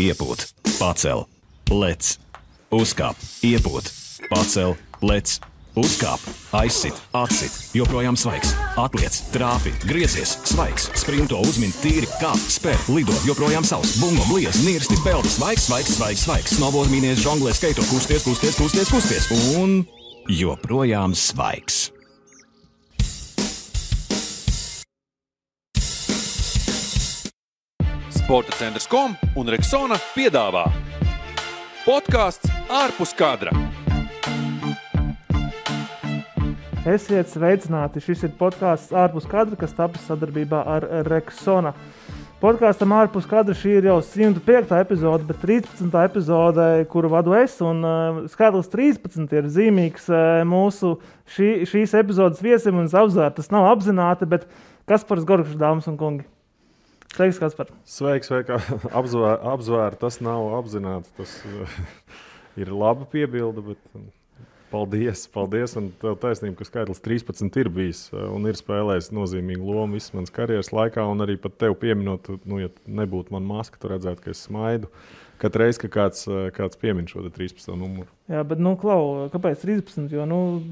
iepūt, pacel, lec, uzkāp, iepūt, pacel, lec, uzkāp, aizsit, atsit, joprojām svaigs, atliec, trāpi, griezies, svaigs, sprinto, uzmin, tīri, kāp, spēr, lido, joprojām savs, bungo, bliez, nirsti, peldi, svaigs, svaigs, svaigs, svaigs, snowboard, mīnies, žonglē, skaito, kusties, kusties, kusties, kusties, un joprojām svaigs. Sporta centrs.com un Rexona piedāvā podcasts ārpus kadra. Esiet sveicināti, šis ir podcasts ārpus kadra, kas tapis sadarbībā ar Rexona. Podkastam ārpus kadra šī ir jau 105. epizode, bet 13. epizode, kuru vadu es, un skaitlis 13 ir zīmīgs mūsu šīs epizodes viesim un apzvērt. Tas nav apzināti, bet Kaspars Gorkšs, dāmas un kungi. Sveiks, Kaspar. Sveiks, apzvērt, tas nav apzināti. Tas ir laba piebilde, bet paldies. Un tev taisnība, ka skaitlis 13 ir bijis un ir spēlējis nozīmīgu lomu visas manas karjeras laikā, un arī pat tev pieminot, ja nebūtu man maska, tu redzētu, ka es smaidu. Katru reizi, ka kāds piemin šo 13. numuru. Jā, bet, Klau, kāpēc 13? Jo,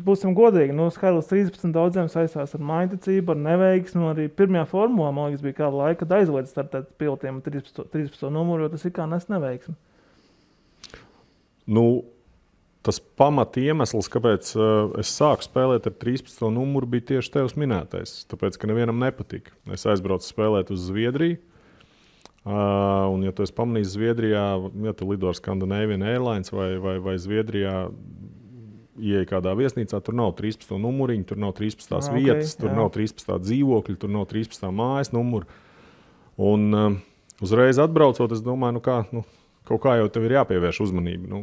būsim godīgi, skaitlis 13 daudziem saistās ar mājticību, ar neveiksmi, arī pirmajā formulā, man liekas, bija kāda laika, kad aizliedz startēt pilotiem 13. numuru, jo tas ir kā nes neveiksmi. Tas pamat iemesls, kāpēc es sāku spēlēt ar 13. numuru, bija tieši tevs minētais, tāpēc, ka nevienam nepatika. Es aizbraucu spēlēt uz Zviedriju. Un, ja tu esi pamanījis Zviedrijā, ja tu lido ar Scandinavian Airlines vai Zviedrijā ieej kādā viesnīcā, tur nav 13. numuriņu, tur nav 13. vietas, tur nav 13. dzīvokļi, tur nav 13. mājas numuru. Un uzreiz atbraucot, es domāju, kaut kā jau tev ir jāpievērš uzmanība.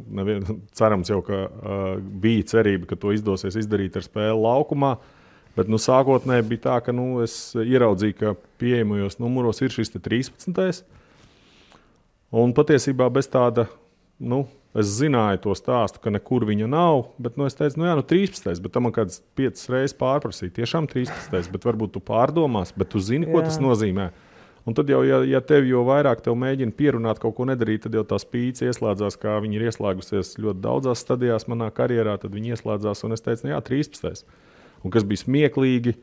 Cerams jau, ka bija cerība, ka to izdosies izdarīt ar spēli laukumā. Bet sākotnēji bija tā, ka es ieraudzīju, ka pieejamajos numuros ir šis 13. Un patiesībā bez tāda, es zināju to stāstu, ka nekur viņa nav, bet es teicu, 13. Bet tam man kāds 5 reizes pārprasīja, tiešām 13. Bet varbūt tu pārdomās, bet tu zini, ko tas nozīmē. Un tad jau, ja tev jau vairāk tev mēģina pierunāt kaut ko nedarīt, tad jau tā spīce ieslēdzās, kā viņi ir ieslēgusies ļoti daudzās stadijās manā karjerā, tad viņi ieslēdzās un es teicu, 13. Un kas bija smieklīgi,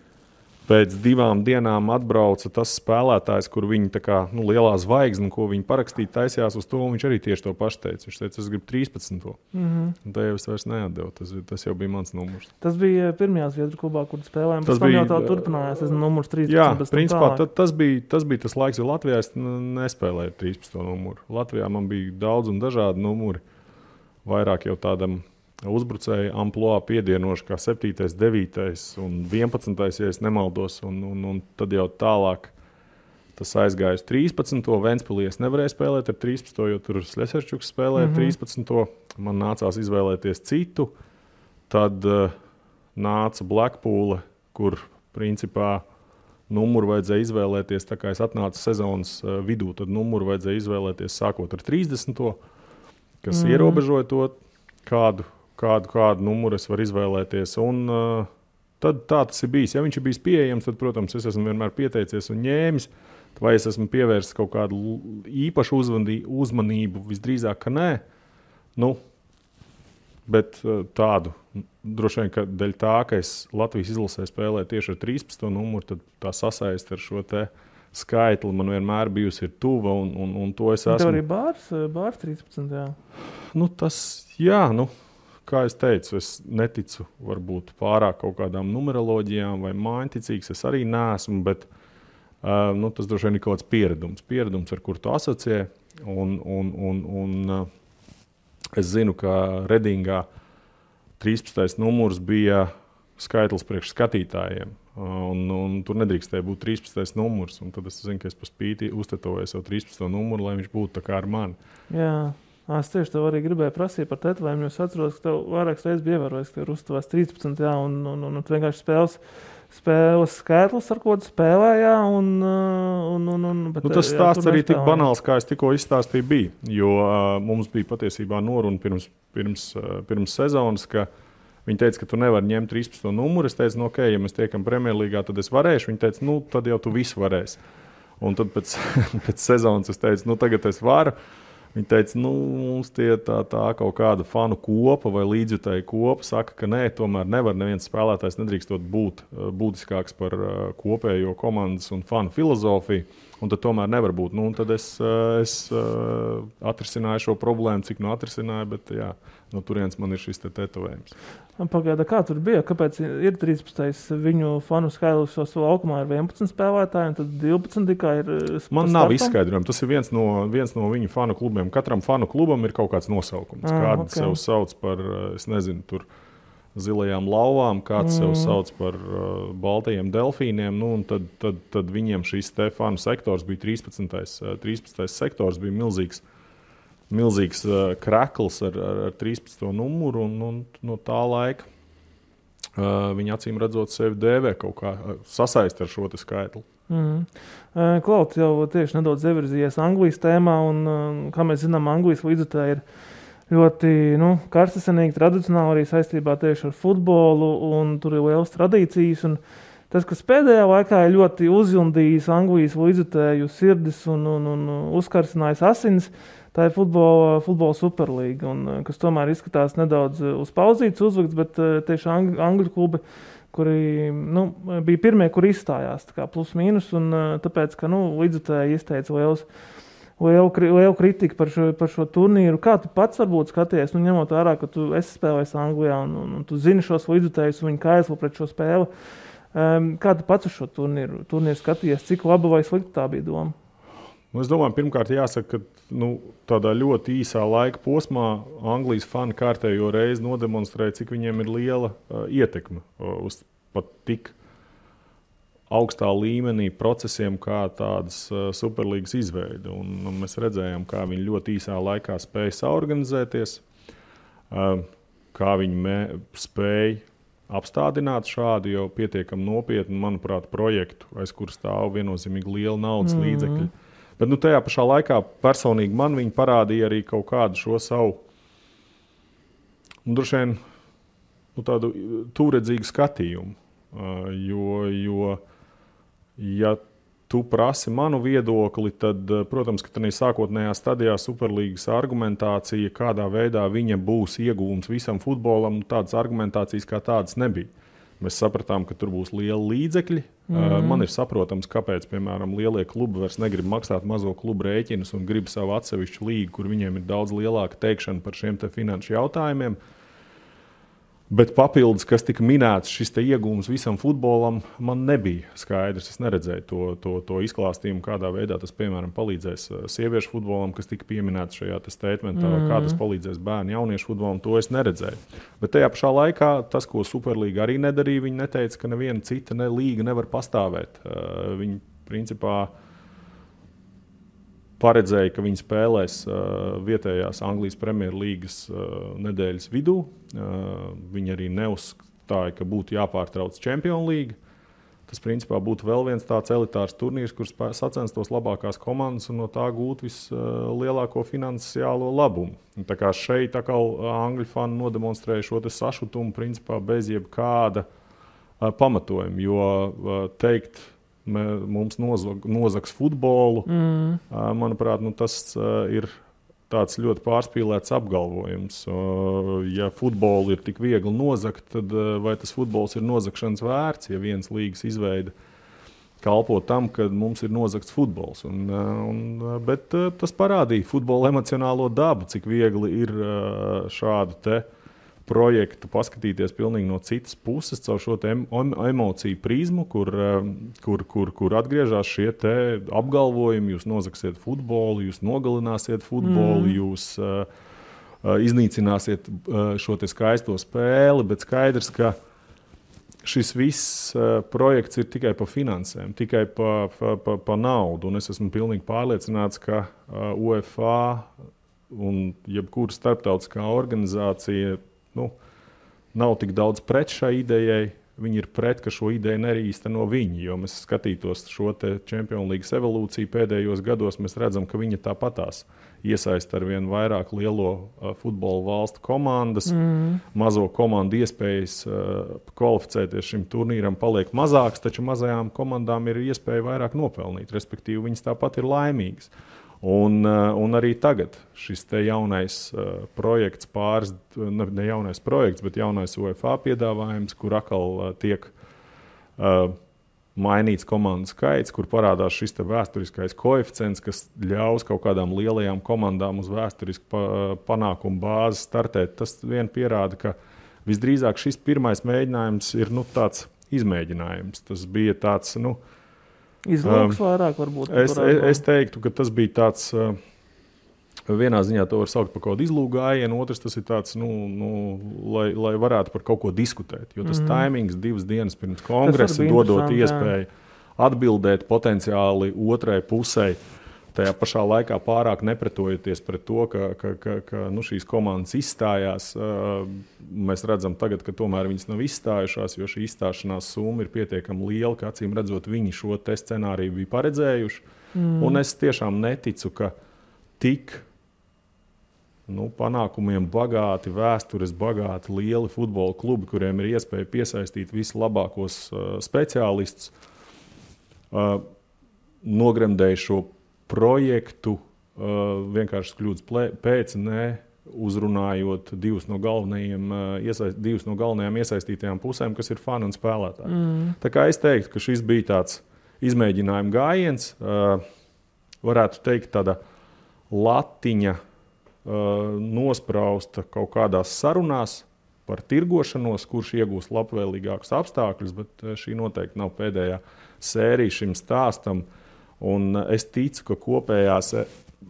pēc 2 dienām atbrauca tas spēlētājs, kur viņi tā kā lielā zvaigzne, ko viņi parakstīja, taisījās uz to, un viņš arī tieši to pašu teica. Viņš teica, es gribu 13. Un tā jau es vairs neatdevu, tas jau bija mans numurs. Tas bija pirmajā Zviedru klubā, kur spēlējām, pēc tam jau tā turpinājās, numurs 13. Jā, principā tas bija tas laiks, jo Latvijā es nespēlēju 13. numuru. Latvijā man bija daudz un dažādi numuri, vairāk jau tādam uzbrucēju amploā piedienoši kā 7., 9. un 11. ja es nemaldos, un tad jau tālāk tas aizgāja uz 13. Ventspilī es nevarēju spēlēt ar 13. jo tur Sleserčuks spēlēja 13. Man nācās izvēlēties citu. Tad nāca Blackpool, kur principā numuru vajadzēja izvēlēties, tā kā es atnācu sezonas vidū, tad numuru vajadzēja izvēlēties sākot ar 30. kas ierobežoja to, kādu numuru es varu izvēlēties. Un tad tā tas ir bijis. Ja viņš ir bijis pieejams, tad, protams, es esmu vienmēr pieteicies un ņēmis. Vai es esmu pievērsis kaut kādu īpašu uzmanību? Visdrīzāk, ka nē. Bet tādu, droši vien, ka dēļ tā, ka es Latvijas izlasē spēlēju tieši ar 13. numuru, tad tā sasaist ar šo te skaitli man vienmēr bijusi ir tuva, un to es esmu. Tev arī bārs 13. Jā. Kā es teicu, es neticu varbūt pārāk kaut kādām numeroloģijām vai mājiņticīgs. Es arī neesmu, bet tas droši vien ir kaut kāds pieredums, ar kur tu asociē. Un es zinu, ka Redingā 13. numurs bija skaitlis priekš skatītājiem. Un tur nedrīkstēja būt 13. numurs. Un tad es zinu, ka es pa spīti uztetoju savu 13. numuru, lai viņš būtu tā kā ar mani. Jā. Es tieši tev arī gribēju prasīt par tetovējumu, jo es atceros, ka tev vairākas reizes bija ievērojis, ka tev ir uztuvās 13, jā, un vienkārši spēles skaitlis, ar ko tu spēlēji, bet tas stāsts arī tik banāls, kā es tikko izstāstīju, bija, jo mums bija patiesībā noruna pirms sezonas, ka viņi teica, ka tu nevari ņemt 13. numuru. Es teicu, ok, ja mēs tiekam Premjerlīgā, tad es varēšu. Viņi teica, tad jau tu visu varēsi. Un tad pēc sezonas es teicu, tagad es varu. Viņi teica, mums tie tā kaut kāda fanu kopa vai līdzjutēju kopa saka, ka nē, tomēr nevar neviens spēlētājs nedrīkstot būt būtiskāks par kopējo komandas un fanu filozofiju, un tad tomēr nevar būt. Un tad es atrisināju šo problēmu, cik atrisināju, bet jā, no turienes man ir šis tetovējums. Pagaida, kā tur bija? Kāpēc ir 13. viņu fanu skaidrs, jo laukumā ir 11 spēlētāji, un tad 12 tikai ir Man nav izskaidrojumi. Tas ir viens no viņu fanu klubiem. Katram fanu klubam ir kaut kāds nosaukums. Kāds sev sauc par, es nezinu, tur zilajām lauvām, kāds sev sauc par baltajiem delfīniem. Un tad viņiem šis te fanu sektors bija 13. sektors, bija milzīgs krekls ar 13. numuru, un no tā laika viņi acīm redzot sevi dēvē kaut kā sasaist ar šo te skaitli. Klauds jau tieši nedaudz ievirzījies Anglijas tēmā, un kā mēs zinām, Anglijas līdzjutēji ir ļoti karstasinīgi, tradicionāli arī saistībā tieši ar futbolu, un tur ir lielas tradīcijas, un tas, kas pēdējā laikā ir ļoti uzjundījis Anglijas līdzjutēju sirdis un uzkarsinājis asins, tā ir futbola superlīga, kas tomēr izskatās nedaudz uz pauzītes uzlikts, bet tieši angļu klubi, kuri bija pirmie, kuri izstājās, tā kā plus mīnus, un tāpēc, ka līdzjutēji izteica lielu kritiku par šo turnīru. Kā tu pats varbūt skaties, ņemot vērā, ka tu esi spēlējis Anglijā un tu zini šos līdzjutējus un viņi kaislo pret šo spēli, kā tu pats uz šo turnīru skaties, cik laba vai slikta tā bija doma? Es domāju, pirmkārt jāsaka, ka tādā ļoti īsā laika posmā Anglijas fani kārtējo reizi nodemonstrēja, cik viņiem ir liela ietekme uz pat tik augstā līmenī procesiem, kā tādas superlīgas izveide. Un mēs redzējām, kā viņi ļoti īsā laikā spēja saorganizēties, kā viņi spēja apstādināt šādu jau pietiekami nopietnu, manuprāt, projektu, aiz kur stāv viennozīmīgi liela naudas līdzekļi. Bet tajā pašā laikā personīgi man viņi parādīja arī kaut kādu šo savu, droši vien, tādu tūredzīgu skatījumu. Jo ja tu prasi manu viedokli, tad, protams, ka tādā sākotnējā stadijā superlīgas argumentācija, kādā veidā viņa būs ieguvums visam futbolam, tādas argumentācijas kā tādas nebija. Mēs sapratām, ka tur būs liela līdzekļi. Man ir saprotams, kāpēc, piemēram, lielie klubi vairs negrib maksāt mazo klubu rēķinus un grib savu atsevišķu līgu, kur viņiem ir daudz lielāka teikšana par šiem te finanšu jautājumiem. Bet papildus, kas tika minēts, šis te iegūms visam futbolam, man nebija skaidrs. Es neredzēju to izklāstījumu, kādā veidā tas, piemēram, palīdzēs sieviešu futbolam, kas tika pieminēts šajā statementā, kā tas palīdzēs bērnu jauniešu futbolam, to es neredzēju. Bet tajā pašā laikā tas, ko Superlīga arī nedarīja, viņi neteica, ka neviena cita līga nevar pastāvēt. Viņi, principā, paredzēja, ka viņi spēlēs vietējās Anglijas Premjerlīgas nedēļas vidū. Viņi arī neuzstāja, ka būtu jāpārtrauc Champions League. Tas principā būtu vēl viens tāds elitārs turnīrs, kur sacenstos labākās komandas un no tā gūt vislielāko finansiālo labumu. Tā kā šeit angļu fani nodemonstrēja šo te sašutumu principā bez jebkāda pamatojuma, jo teikt, mums nozags futbolu, manuprāt, tas ir tāds ļoti pārspīlēts apgalvojums. Ja futbolu ir tik viegli nozagt, tad vai tas futbols ir nozagšanas vērts, ja viens līgas izveida kalpo tam, ka mums ir nozagts futbols. Bet tas parādīja futbola emocionālo dabu, cik viegli ir šādu te projektu paskatīties pilnīgi no citas puses, caur šo emociju prizmu, kur atgriežas šie te apgalvojumi, jūs nozagsiet futbolu, jūs nogalināsiet futbolu, jūs iznīcināsiet šo te skaisto spēli, bet skaidrs, ka šis viss projekts ir tikai par finansēm, tikai par naudu, un es esmu pilnīgi pārliecināts, ka UEFA un jebkura starptautiskā organizācija nav tik daudz pret šai idejai. Viņi ir pret, ka šo ideju neīsteno viņi, jo mēs skatītos šo te Champions League evolūciju pēdējos gados, mēs redzam, ka viņa tāpatās iesaista ar vien vairāk lielo futbola valstu komandas. Mazo komandu iespējas kvalificēties šim turnīram paliek mazāks, taču mazajām komandām ir iespēja vairāk nopelnīt, respektīvi viņas tāpat ir laimīgas. Un arī tagad šis te jaunais projekts, ne jaunais projekts, bet jaunais UEFA piedāvājums, kur atkal tiek mainīts komandu skaits, kur parādās šis te vēsturiskais koeficients, kas ļaus kaut kādām lielajām komandām uz vēsturisku panākumu bāzi startēt. Tas vien pierāda, ka visdrīzāk šis pirmais mēģinājums ir tāds izmēģinājums. Tas bija tāds, izlūks vairāk varbūt. Es teiktu, ka tas bija tāds, vienā ziņā to var saukt par kaut kādu izlūku gājienu, otrs tas ir tāds, lai varētu par kaut ko diskutēt. Jo tas taimings 2 dienas pirms kongresa dodot iespēju atbildēt potenciāli otrai pusē, tajā pašā laikā pārāk nepretojoties pret to, ka šīs komandas izstājās. Mēs redzam tagad, ka tomēr viņas nav izstājušās, jo šī izstāšanās summa ir pietiekami liela, ka acīm redzot viņi šo te scenāriju bija paredzējuši. Un es tiešām neticu, ka tik panākumiem bagāti, vēstures bagāti, lieli futbola klubi, kuriem ir iespēja piesaistīt vislabākos speciālistus, nogremdēja šo projektu vienkārši kļūdas pēc, uzrunājot divus no galvenajām iesaistītajām pusēm, kas ir fani un spēlētāji. Tā kā es teiktu, ka šis bija tāds izmēģinājuma gājiens, varētu teikt tāda latiņa nosprausta kaut kādās sarunās par tirgošanos, kurš iegūs labvēlīgākus apstākļus, bet šī noteikti nav pēdējā sērija šim stāstam. Un es ticu, ka kopējās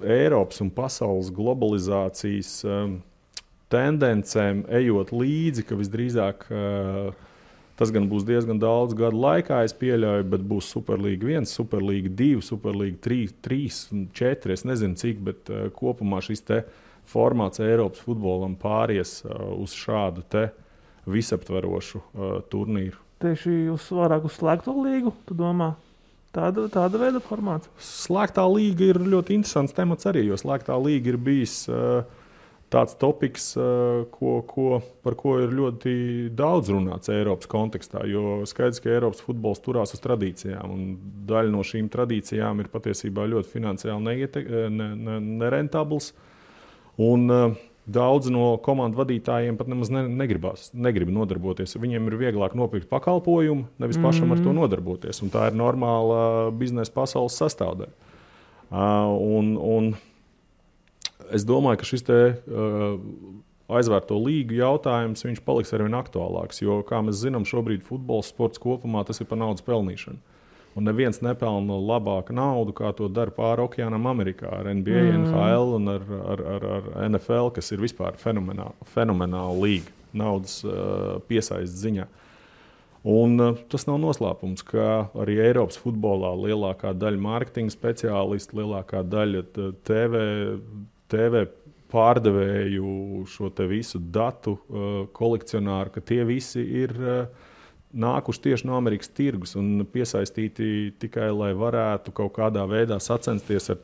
Eiropas un pasaules globalizācijas tendencēm ejot līdzi, ka visdrīzāk tas gan būs diezgan daudz gadu laikā, es pieļauju, bet būs Superlīga 1, Superlīga 2, Superlīga 3, 4, es nezinu cik, bet kopumā šis te formāts Eiropas futbolam pāries uz šādu te visaptverošu turnīru. Tieši vairāk uz slēgto līgu, tu domā? Tāda veida formāts? Slēgtā līga ir ļoti interesants temats arī, jo slēgtā līga ir bijis tāds topiks, par ko ir ļoti daudz runāts Eiropas kontekstā, jo skaidrs, ka Eiropas futbols turās uz tradīcijām, un daļa no šīm tradīcijām ir patiesībā ļoti finansiāli nerentabls, un daudz no komandu vadītājiem pat nemaz negrib nodarboties. Viņiem ir vieglāk nopirkt pakalpojumu, nevis pašam ar to nodarboties, un tā ir normāla biznesa pasaules sastāvdaļa. Un es domāju, ka šis te aizvērto līgu jautājums viņš paliks arvien aktuālāks, jo, kā mēs zinām, šobrīd futbols sports kopumā tas ir par naudas pelnīšanu. Un neviens nepelna labāku naudu, kā to dara pāri okeānam Amerikā ar NBA, NHL un ar NFL, kas ir vispār fenomenāla līga naudas piesaistes ziņā. Un tas nav noslēpums, ka arī Eiropas futbolā lielākā daļa mārketinga speciālistu, lielākā daļa TV pārdevēju, šo te visu datu kolekcionāru, ka tie visi ir nākuši tieši no Amerikas tirgus un piesaistīti tikai, lai varētu kaut kādā veidā sacensties ar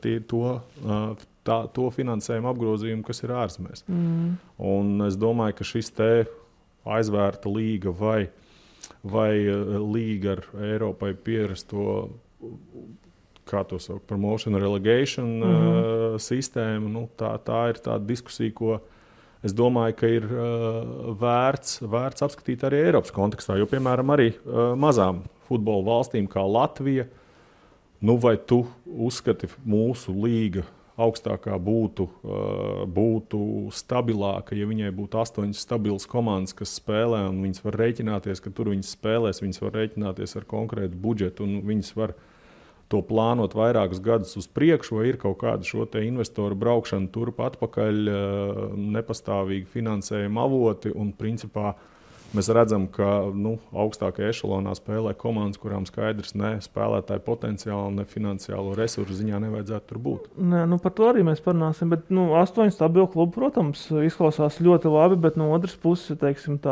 to finansējumu apgrozījumu, kas ir ārzemēs. Un es domāju, ka šis te aizvērta līga vai līga ar Eiropai pierasto, kā to sauc, promotion relegation sistēmu, tā ir tāda diskusija, ko es domāju, ka ir vērts apskatīt arī Eiropas kontekstā, jo, piemēram, arī mazām futbola valstīm kā Latvija, vai tu uzskati mūsu līga augstākā būtu stabilāka, ja viņai būtu 8 stabilas komandas, kas spēlē, un viņas var rēķināties, ka tur viņas spēlēs, viņas var rēķināties ar konkrētu budžetu, un viņas var to plānot vairākus gadus uz priekšu, vai ir kaut kāda šo te investoru braukšana turp atpakaļ, nepastāvīgi finansējuma avoti, un principā mēs redzam, ka augstākajā ešalonā spēlē komandas, kurām skaidrs ne spēlētāju potenciāli, ne finansiālo resursu ziņā nevajadzētu tur būt. Nē, par to arī mēs parunāsim, bet 8 stabilu klubu, protams, izklausās ļoti labi, bet no otras puses, teiksim,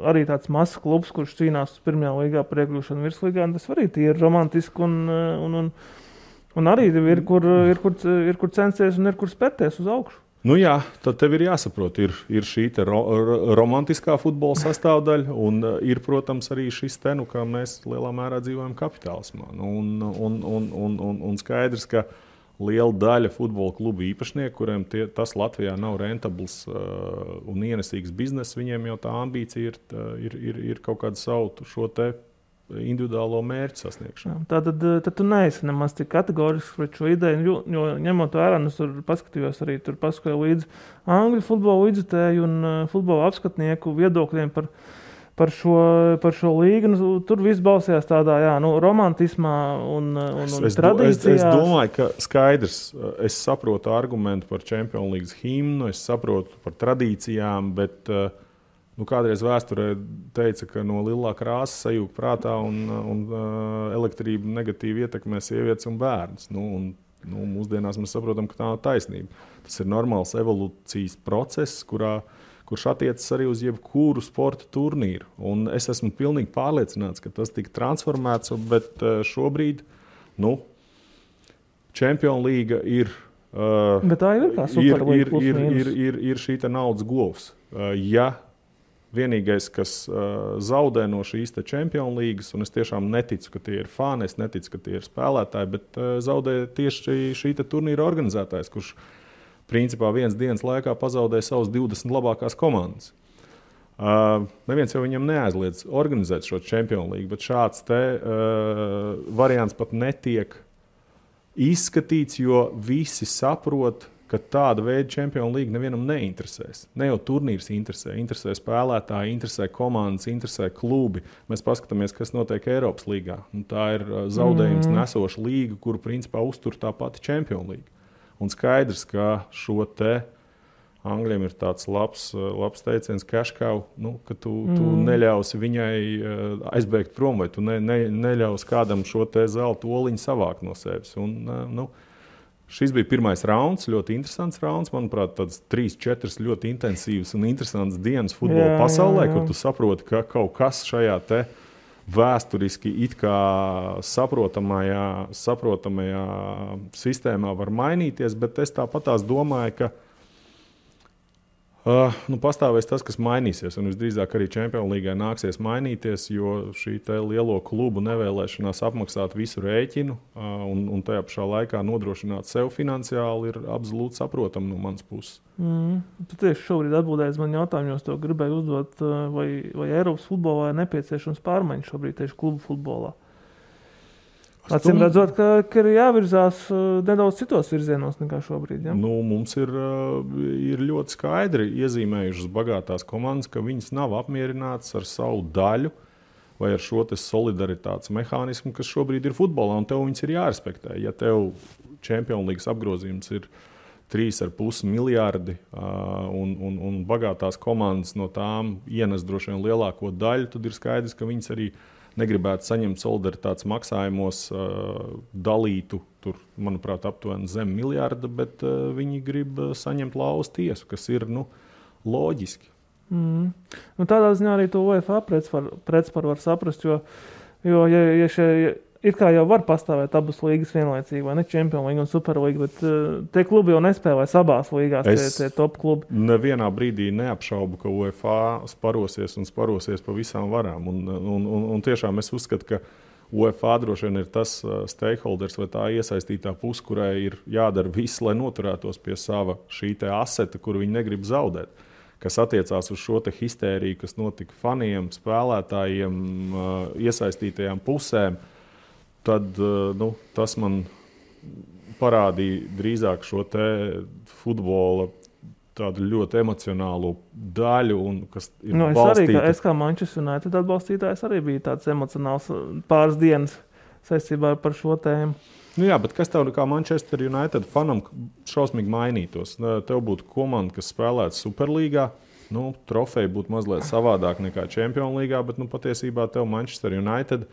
arī tāds mazs klubs, kurš cīnās pirmajā līgā par iekļūšanu virslīgā, tas arī ir romantiski un arī ir, kur censties un ir, kur spērties uz augšu. Jā, tad tev ir jāsaprot, ir šī te romantiskā futbola sastāvdaļa, un ir, protams, arī šis te, kā mēs lielā mērā dzīvojam kapitālismā. Un skaidrs, ka liela daļa futbola klubu īpašnieku, kuriem tas Latvijā nav rentabls un ienesīgs bizness, viņiem jau tā ambīcija ir kaut kādu savu šo te individuālo mērķu sasniegšanu. Tad tu neesi nemaz tik kategorisks pret šo ideju, jo ņemot vērā, es tur paskatījos arī, tur paskatīju līdzi angļu futbola līdzutēju un futbola apskatnieku viedokļiem par šo līgu. Tur viss balstījās tādā romantismā un tradīcijās. Es domāju, ka skaidrs. Es saprotu argumentu par Champions League himnu, es saprotu par tradīcijām, bet kādreiz vēsturē teica, ka no lilā krāsa sajūg prātā un elektrība negatīvi ietekmē sievietes un bērnus. Mūsdienās mēs saprotam, ka tā nav taisnība. Tas ir normāls evolūcijas process, kurš attiecas arī uz jebkuru sporta turnīru. Un es esmu pilnīgi pārliecināts, ka tas tika transformēts, bet šobrīd Champions League ir, bet tā ir kā Superlīga ir šī naudas govs. Ja vienīgais, kas zaudē no šīs Champions Leagues, un es tiešām neticu, ka tie ir fani, es neticu, ka tie ir spēlētāji, bet zaudē tieši šī turnīra organizētājs, kurš principā vienas dienas laikā pazaudēja savas 20 labākās komandas. Neviens jau viņam neaizliedz organizēt šo Champions League, bet šāds variants pat netiek izskatīts, jo visi saprot, ka tāda veida Champions League nevienam neinteresēs. Ne jau turnīrs interesē spēlētāji, interesē komandas, interesē klubi. Mēs paskatāmies, kas notiek Eiropas līgā. Un tā ir zaudējums nesoša līga, kuru principā uztur tā pati Champions League. Un skaidrs, ka šo te Angļiem ir tāds labs teiciens cash cow, ka tu neļausi viņai aizbēgt prom, vai tu neļausi kādam šo te zelta oliņu savākt no sevis. Un, šis bija pirmais rauns, ļoti interesants rauns. Manuprāt, tāds 3-4 ļoti intensīvas un interesants dienas futbola pasaulē, kur tu saproti, ka kaut kas šajā te vēsturiski it kā saprotamajā sistēmā var mainīties, bet es tāpatās domāju, ka pastāvēs tas, kas mainīsies, un visdrīzāk arī Champions Leagai nāksies mainīties, jo šī te lielo klubu nevēlēšanās apmaksāt visu rēķinu un tajā pašā laikā nodrošināt sev finansiāli ir absolūti saprotama no manas puses. Tu tieši šobrīd atbildēji man jautājumu, jo es to gribēju uzdot, vai Eiropas futbolā ir nepieciešams pārmaiņas šobrīd tieši klubu futbolā. Acīm redzot, ka ir jāvirzās nedaudz citos virzienos nekā šobrīd. Ja? Mums ir ļoti skaidri iezīmējušas bagātās komandas, ka viņas nav apmierinātas ar savu daļu vai ar šo solidaritātes mehānismu, kas šobrīd ir futbolā, un tev viņas ir jārespektē. Ja tev Champions League apgrozījums ir 3,5 miljardi un bagātās komandas no tām ienes droši vien lielāko daļu, tad ir skaidrs, ka viņas arī negribētu saņemt solidaritātes maksājumos dalītu, tur, manuprāt, aptuveni zem miljarda, bet viņi grib saņemt lauz tiesu, kas ir loģiski. Tādā ziņā arī to UEFA pretspar var saprast, jo ja it kā jau var pastāvēt abas līgas vienlaicīgi, vai ne Champions League un Superlīga, bet tie klubi jau nespēlē abās līgās, tie top klubi. Nevienā brīdī neapšaubu, ka UEFA sparosies pa visām varām. Un tiešām es uzskatu, ka UEFA droši vien ir tas stakeholders vai tā iesaistītā puse, kurai ir jādara viss, lai noturētos pie sava šī te aseta, kuru viņi negrib zaudēt. Kas attiecās uz šo te histēriju, kas notika faniem, spēlētājiem, iesaistītajām pusēm, tad tas man parādīja drīzāk šo te futbola tādu ļoti emocionālu daļu, un kas ir balstīta. Es kā Manchester United atbalstītājs arī bija tāds emocionāls pāris dienas saistībā par šo tēmu. Jā, bet kas tev kā Manchester United fanam šausmīgi mainītos? Tev būtu komanda, kas spēlētu Superlīgā, trofeja būtu mazliet savādāk nekā Champions Līgā, bet patiesībā tev Manchester United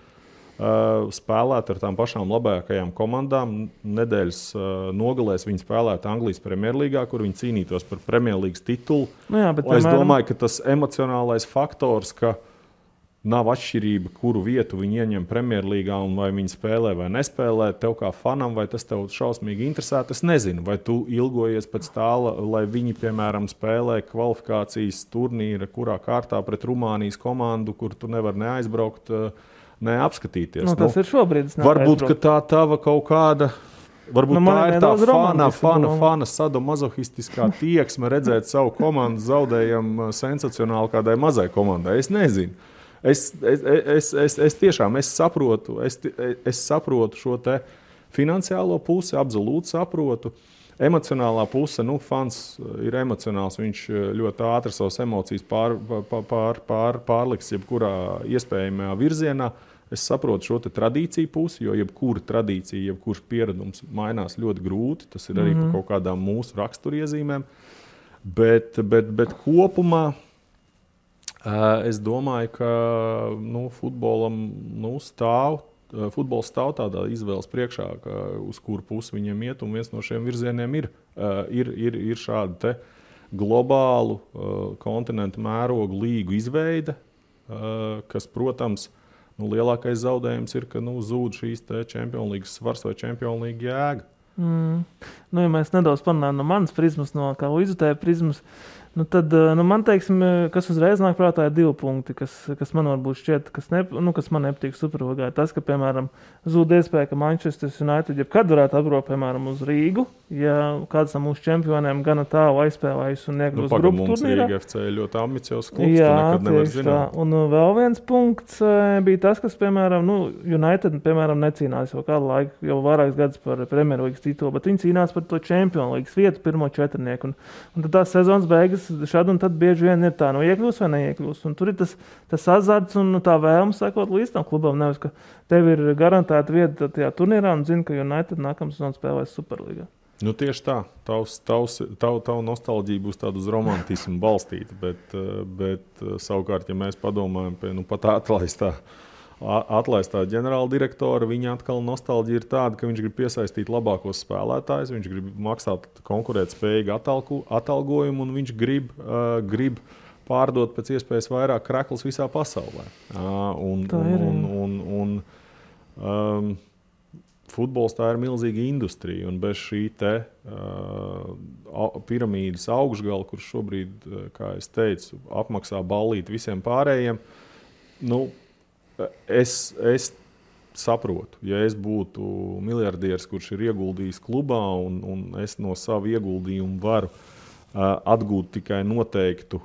spēlēt ar tām pašām labākajām komandām. Nedēļas nogalēs viņi spēlētu Anglijas Premjerlīgā, kur viņi cīnītos par Premjerlīgas titulu. Es domāju, ka tas emocionālais faktors, ka nav atšķirība, kuru vietu viņi ieņem Premjerlīgā un vai viņi spēlē vai nespēlē, tev kā fanam, vai tas tev šausmīgi interesē, es nezinu. Vai tu ilgojies pēc tā, lai viņi, piemēram, spēlē kvalifikācijas turnīra, kurā kārtā pret Rumānijas komandu, kur tu nevar neaizbraukt, neapskatīties. Tas ir šobrīd. Varbūt, ka tā tava kaut kāda Varbūt tā ir tā fana sadomazohistiskā tieksme redzēt savu komandu zaudējam sensacionāli kādai mazai komandai. Es nezinu. Es tiešām saprotu šo te finansiālo pusi, absolūti saprotu. Emocionālā puse, fans ir emocionāls, viņš ļoti ātri savas emocijas pārliks jebkurā iespējamajā virzienā. Es saprotu šo tradīciju pusi, jo jebkura tradīcija, jebkurš pieredums mainās ļoti grūti. Tas ir arī par kaut kādām mūsu raksturiezīmēm. Bet kopumā es domāju, ka futbols stāv tādā izvēles priekšā, uz kuru pusi viņiem iet, un viens no šiem virzieniem ir šāda te globālu kontinentu mērogu līgu izveide, kas, protams, lielākais zaudējums ir, ka zūd šīs Champions League svars vai Champions League jēga. Ja mēs nedaudz parunājam no manas prizmas, no kā izjutēja prizmas, tad man, teiksim, kas uzreiz nāk prātā ir 2 punkti, kas man varbūt šķiet, kas man nepatīk Superlīgā. Tas, ka, piemēram, zūd iespēja, ka Manchester United jebkad varētu atbraukt, piemēram, uz Rīgu, ja kāds no mūsu čempioniem gana tālu aizspēlējis un iekļūst grupu turnīrā. Mums FC ir ļoti ambiciozs klubs, tu nekad nevar zināt. Un vēl viens punkts bija tas, kas, piemēram, United, piemēram, necīnās jau kādu laiku, jau vairākas gadus par Premjerlīgas titulu, bet viņi cīnās par to Champions League vietu, pirmo 4. Un tad tās sezonas beigas šad un tad bieži vien ir tā, iekļūs vai neiekļūs. Un tur ir tas azarts un tā vēlme sekot līdz tam klubam. Nevis, ka tev ir garantēta vieta tajā turnīrā un zini, ka United nākamā sezona spēlēs Superlīgā. Tieši tā. Tava nostalģija būs tāda uz romantismu balstīta, bet savukārt, ja mēs padomājam pie pat atlaistā ģenerāla direktora, viņa atkal nostalģija ir tāda, ka viņš grib piesaistīt labākos spēlētājus, viņš grib maksāt konkurētspējīgu atalgojumu un viņš grib pārdot pēc iespējas vairāk kreklus visā pasaulē. Futbols tā ir milzīga industrija, un bez šī piramīdas augšgala, kurš šobrīd, kā es teicu, apmaksā ballīt visiem pārējiem, es saprotu, ja es būtu miljardieris, kurš ir ieguldījis klubā, un es no savu ieguldījumu varu atgūt tikai noteiktu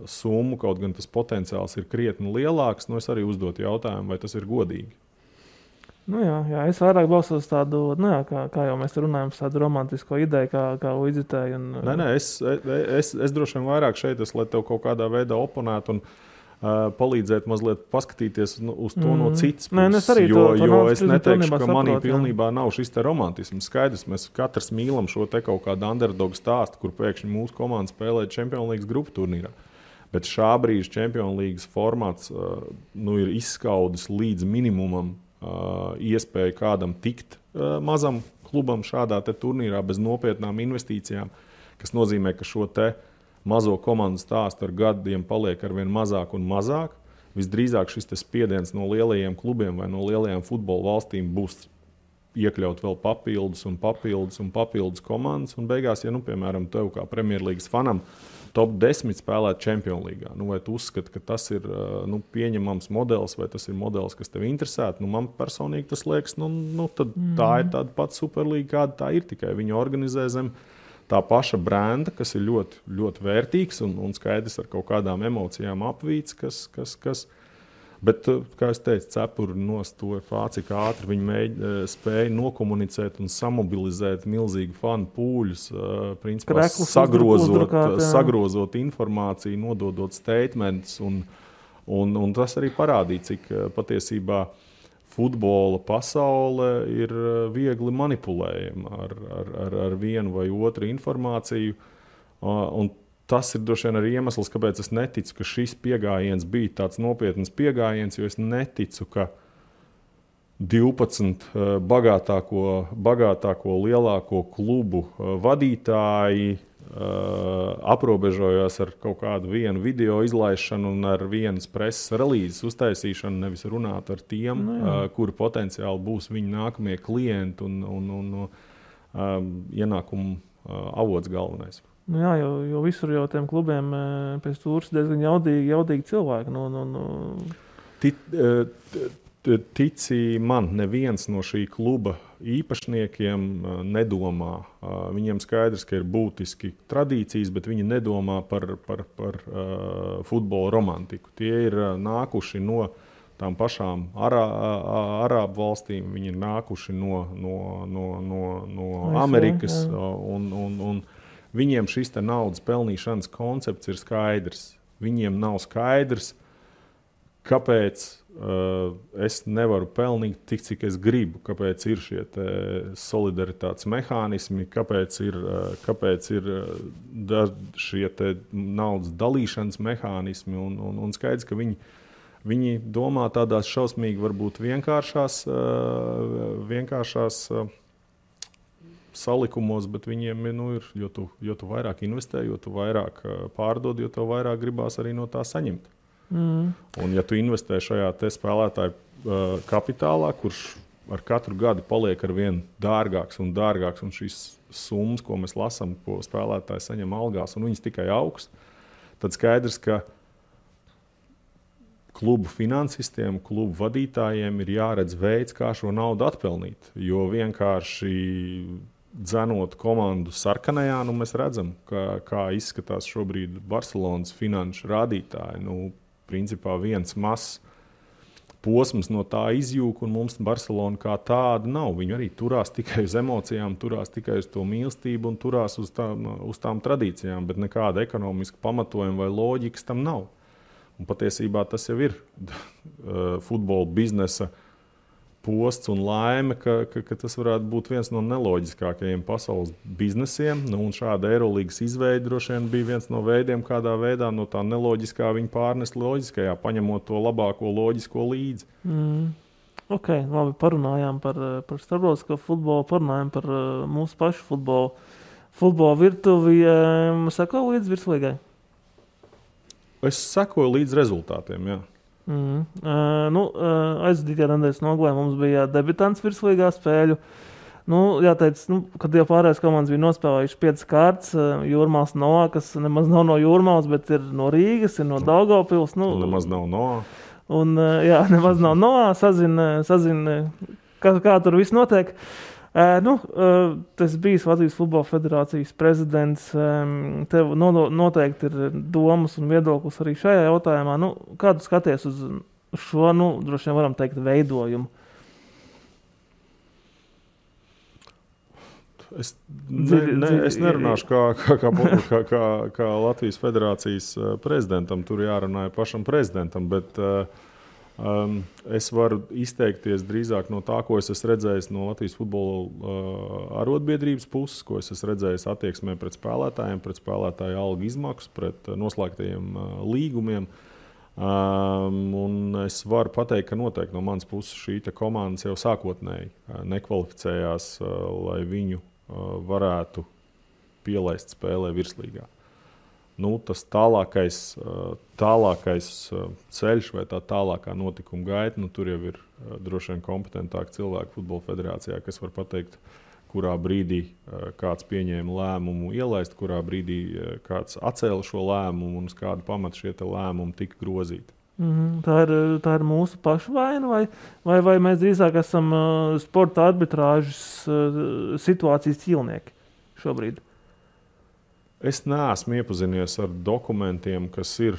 summu, kaut gan tas potenciāls ir krietni lielāks, es arī uzdotu jautājumu, vai tas ir godīgi. Jā, es vairāk balsos tādu, kā jau mēs runājam, tādu romantisko ideju, kā izjutēju. Es droši vien vairāk šeit, lai tev kaut kādā veidā oponētu un palīdzēt mazliet paskatīties uz to no citas puses, jo es neteikšu, ka manī pilnībā nav šis te romantisms. Skaidrs, mēs katrs mīlam šo te kaut kādu underdog stāstu, kur pēkšņi mūsu komanda spēlē Champions League grupu turnīrā. Bet šā brīža Champions League formāts ir izskaudis līdz minimumam iespēju kādam tikt mazam klubam šādā te turnīrā bez nopietnām investīcijām, kas nozīmē, ka šo te mazo komandu stāstu ar gadiem paliek arvien mazāk un mazāk. Visdrīzāk šis spiediens no lielajiem klubiem vai no lielajām futbola valstīm būs iekļaut vēl papildus komandas. Un beigās, ja, piemēram, tev kā Premjerlīgas fanam top 10 spēlēt Champions League, vai tu uzskati, ka tas ir pieņemams modelis, vai tas ir modelis, kas tev interesētu? Man personīgi tas liekas, tad tā ir tāda pati Superlīga, kāda tā ir, tikai viņi organizē zem tā paša brenda, kas ir ļoti, ļoti vērtīgs un skaidrs ar kaut kādām emocijām apvīts, kas bet, kā es teicu, cepuri nost to cik ātri viņi spēja nokomunicēt un samobilizēt milzīgu fanu pūļus, principā sagrozot informāciju, nododot statements, un tas arī parādīja, cik patiesībā futbola pasaule ir viegli manipulējama ar vienu vai otru informāciju. Un tas ir droši vien arī iemesls, kāpēc es neticu, ka šis pieejams bija tāds nopietns pieejams, jo es neticu, ka 12 bagātāko lielāko klubu vadītāji aprobežojās ar kaut kādu vienu video izlaišanu un ar vienas preses relīzes uztaisīšanu, nevis runāt ar tiem, kuri potenciāli būs viņu nākamie klienti un ienākumu avots galvenais. Jo visur jau tiem klubiem pēc tūras diezgan jaudīgi cilvēki. Tici man, neviens no šī kluba īpašniekiem nedomā. Viņiem skaidrs, ka ir būtiski tradīcijas, bet viņi nedomā par futbola romantiku. Tie ir nākuši no tām pašām Arābu valstīm, viņi ir nākuši no Amerikas, un viņiem šis te naudas pelnīšanas koncepts ir skaidrs. Viņiem nav skaidrs, kāpēc es nevaru pelnīt tik, cik es gribu, kāpēc ir šie solidaritātes mehānismi, kāpēc ir šie naudas dalīšanas mehānismi, un skaidrs, ka viņi domā tādās šausmīgi, varbūt vienkāršās salikumos, bet viņiem ir, jo tu vairāk investē, jo tu vairāk pārdod, jo tev vairāk gribās arī no tā saņemt. Un ja tu investē šajā te spēlētāju kapitālā, kurš ar katru gadu paliek ar vien dārgāks, un šīs summas, ko mēs lasām, ko spēlētāji saņem algās, un viņas tikai augs, tad skaidrs, ka klubu finansistiem, klubu vadītājiem ir jāredz veids, kā šo naudu atpelnīt. Jo vienkārši dzenot komandu sarkanajā, mēs redzam, kā izskatās šobrīd Barcelonas finanšu rādītāji. Principā viens mazs posms no tā izjūg, un mums Barcelona kā tāda nav. Viņi arī turās tikai uz emocijām, turās tikai uz to mīlestību un turās uz tām tradīcijām, bet nekāda ekonomiska pamatojuma vai loģikas tam nav. Un patiesībā tas jau ir futbola biznesa posts un laime, ka tas varētu būt viens no neloģiskākajiem pasaules biznesiem. Un šāda Eirolīgas izveide droši vien bija viens no veidiem, kādā veidā no tā neloģiskā viņi pārnest loģiskajā, paņemot to labāko loģisko līdzi. Ok, labi, parunājām par starptautisko futbolu, parunājām par mūsu pašu futbola virtuvi. Sako līdz virslīgai? Es sekoju līdz rezultātiem, jā. Aizvadītajā nedēļas nogalē mums bija debitants virslīgā spēļu. Jāteic, kad jau pārējās komandas bija nospēlējuši 5 kārtas, Jūrmāls Noā, kas nemaz nav no Jūrmāls, bet ir no Rīgas, ir no Daugavpils. Nemaz nav Noā. Nemaz nav Noā, sazina kā tur viss notiek. Tas bijis Latvijas Futbola Federācijas prezidents. Tev noteikti ir domas un viedoklis arī šajā jautājumā. Kā tu skaties uz šo, droši vien varam teikt, veidojumu? Es nerunāšu kā Latvijas Federācijas prezidentam, tur jārunāja pašam prezidentam, bet es varu izteikties drīzāk no tā, ko es esmu redzējis no Latvijas futbola arotbiedrības puses, ko es esmu redzējis attieksmē pret spēlētājiem, pret spēlētāju algu izmaksu, pret noslēgtajiem līgumiem. Un es varu pateikt, ka noteikti no manas puses šī komandas jau sākotnēji nekvalificējās, lai viņu varētu pielaist spēlē virslīgā. Tas tālākais ceļš vai tā tālākā notikuma gaita, tur jau ir droši vien kompetentāki cilvēki Futbola Federācijā, kas var pateikt, kurā brīdī kāds pieņēma lēmumu ielaist, kurā brīdī kāds atcēla šo lēmumu un uz kādu pamatu šie lēmumi tika grozīti. Tā ir mūsu pašu vaina, vai mēs drīzāk esam sporta arbitrāžas situācijas ķīlnieki šobrīd? Es neesmu iepazinies ar dokumentiem, kas ir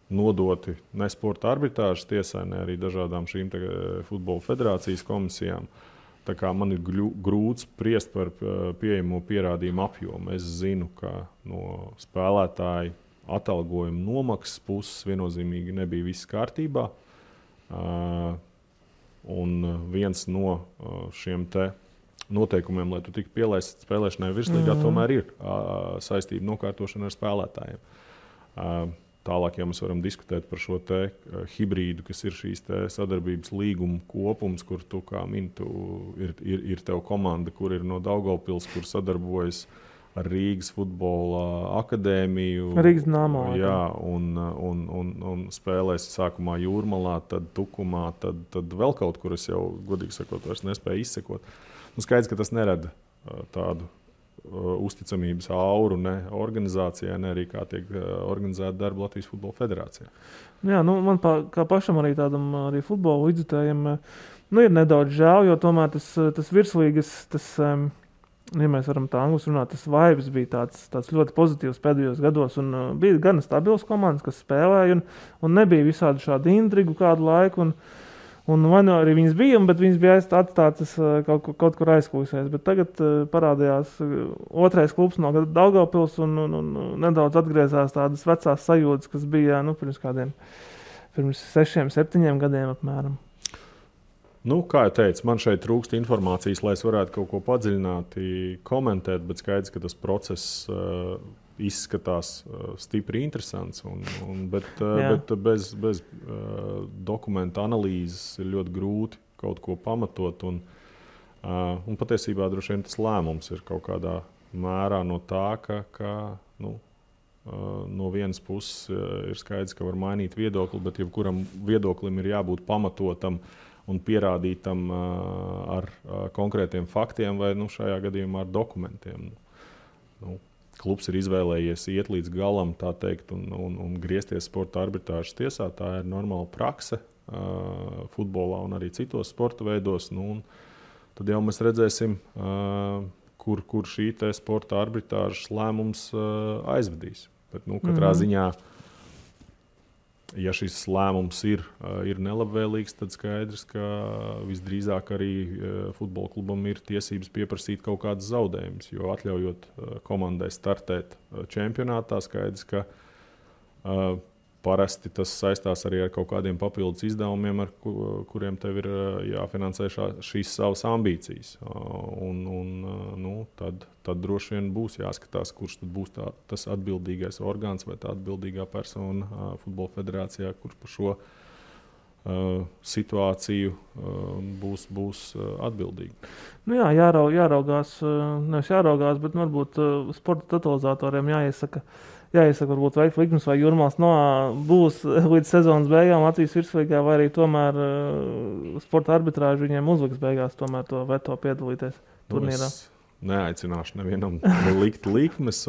nodoti ne sporta arbitrāžas tiesai, ne arī dažādām šīm futbola federācijas komisijām. Tā kā man ir grūti spriest par pieejamo pierādījumu apjomu. Es zinu, ka no spēlētāju atalgojuma nomaksas puses viennozīmīgi nebija viss kārtībā. Un viens no šiem noteikumiem, lai tu tiktu pielaists spēlēšanai virslīgā, tomēr ir saistība nokārtošana ar spēlētājiem. Tālāk, ja mēs varam diskutēt par šo hibrīdu, kas ir šīs sadarbības līguma kopums, kur tu, kā mini, ir tev komanda, kur ir no Daugavpils, kur sadarbojas ar Rīgas futbola akadēmiju. Rīgas Dināmo. Jā, un spēlēs sākumā Jūrmalā, tad Tukumā, tad vēl kaut kur es jau, godīgi sakot, vairs nespēju izsekot. Skaidrs, ka tas nerada tādu uzticamības auru ne organizācijai, ne arī kā tiek organizēta darba Latvijas Futbola Federācijā. Jā, man kā pašam arī tādam arī futbola līdzjutējiem, ir nedaudz žēl, jo tomēr tas virslīgas, ja mēs varam tā angliski runāt, tas vibes bija tāds ļoti pozitīvs pēdējos gados, un bija gan stabils komandas, kas spēlēja, un nebija visādi šādi intrigu kādu laiku, un vai arī viņas bija, bet viņas bija atstātas kaut kur aizkulisēs. Bet tagad parādījās otrais klubs no Daugavpils un nedaudz atgriezās tādas vecās sajūtas, kas bija pirms 6-7 gadiem apmēram. Kā jau teicu, man šeit trūkst informācijas, lai es varētu kaut ko padziļināti komentēt, bet skaidrs, ka tas process izskatās stipri interesants, bet bez dokumentu analīzes ir ļoti grūti kaut ko pamatot. Un patiesībā droši vien tas lēmums ir kaut kādā mērā no tā, ka no vienas puses ir skaidrs, ka var mainīt viedokli, bet jebkuram viedoklim ir jābūt pamatotam un pierādītam ar konkrētiem faktiem vai šajā gadījumā ar dokumentiem. Klubs ir izvēlējies iet līdz galam, tā teikt, un griezties sporta arbitrāžas tiesā. Tā ir normāla prakse futbolā un arī citos sporta veidos. Tad jau mēs redzēsim, kur šī sporta arbitrāžas lēmums aizvedīs. Bet, katrā ziņā, ja šis lēmums ir nelabvēlīgs, tad skaidrs, ka visdrīzāk arī futbola klubam ir tiesības pieprasīt kaut kādas zaudējumus. Jo atļaujot komandai startēt čempionātā, skaidrs, ka parasti tas saistās arī ar kaut kādiem papildus izdevumiem, ar kuriem tev ir jāfinansē šīs savas ambīcijas. Tad droši vien būs jāskatās, kurš tad būs tas atbildīgais orgāns vai tā atbildīgā persona Futbola Federācijā, kurš par šo situāciju būs atbildīgi. Jāraugās, nevis jāraugās, bet varbūt sporta totalizatoriem jāiesaka varbūt veikt likmes, vai Jūrmāls būs līdz sezonas beigām Latvijas virslīgā, vai arī tomēr sporta arbitrāži viņiem uzliks beigās tomēr to veto piedalīties turnīrā. Es neaicināšu nevienam likt likmes,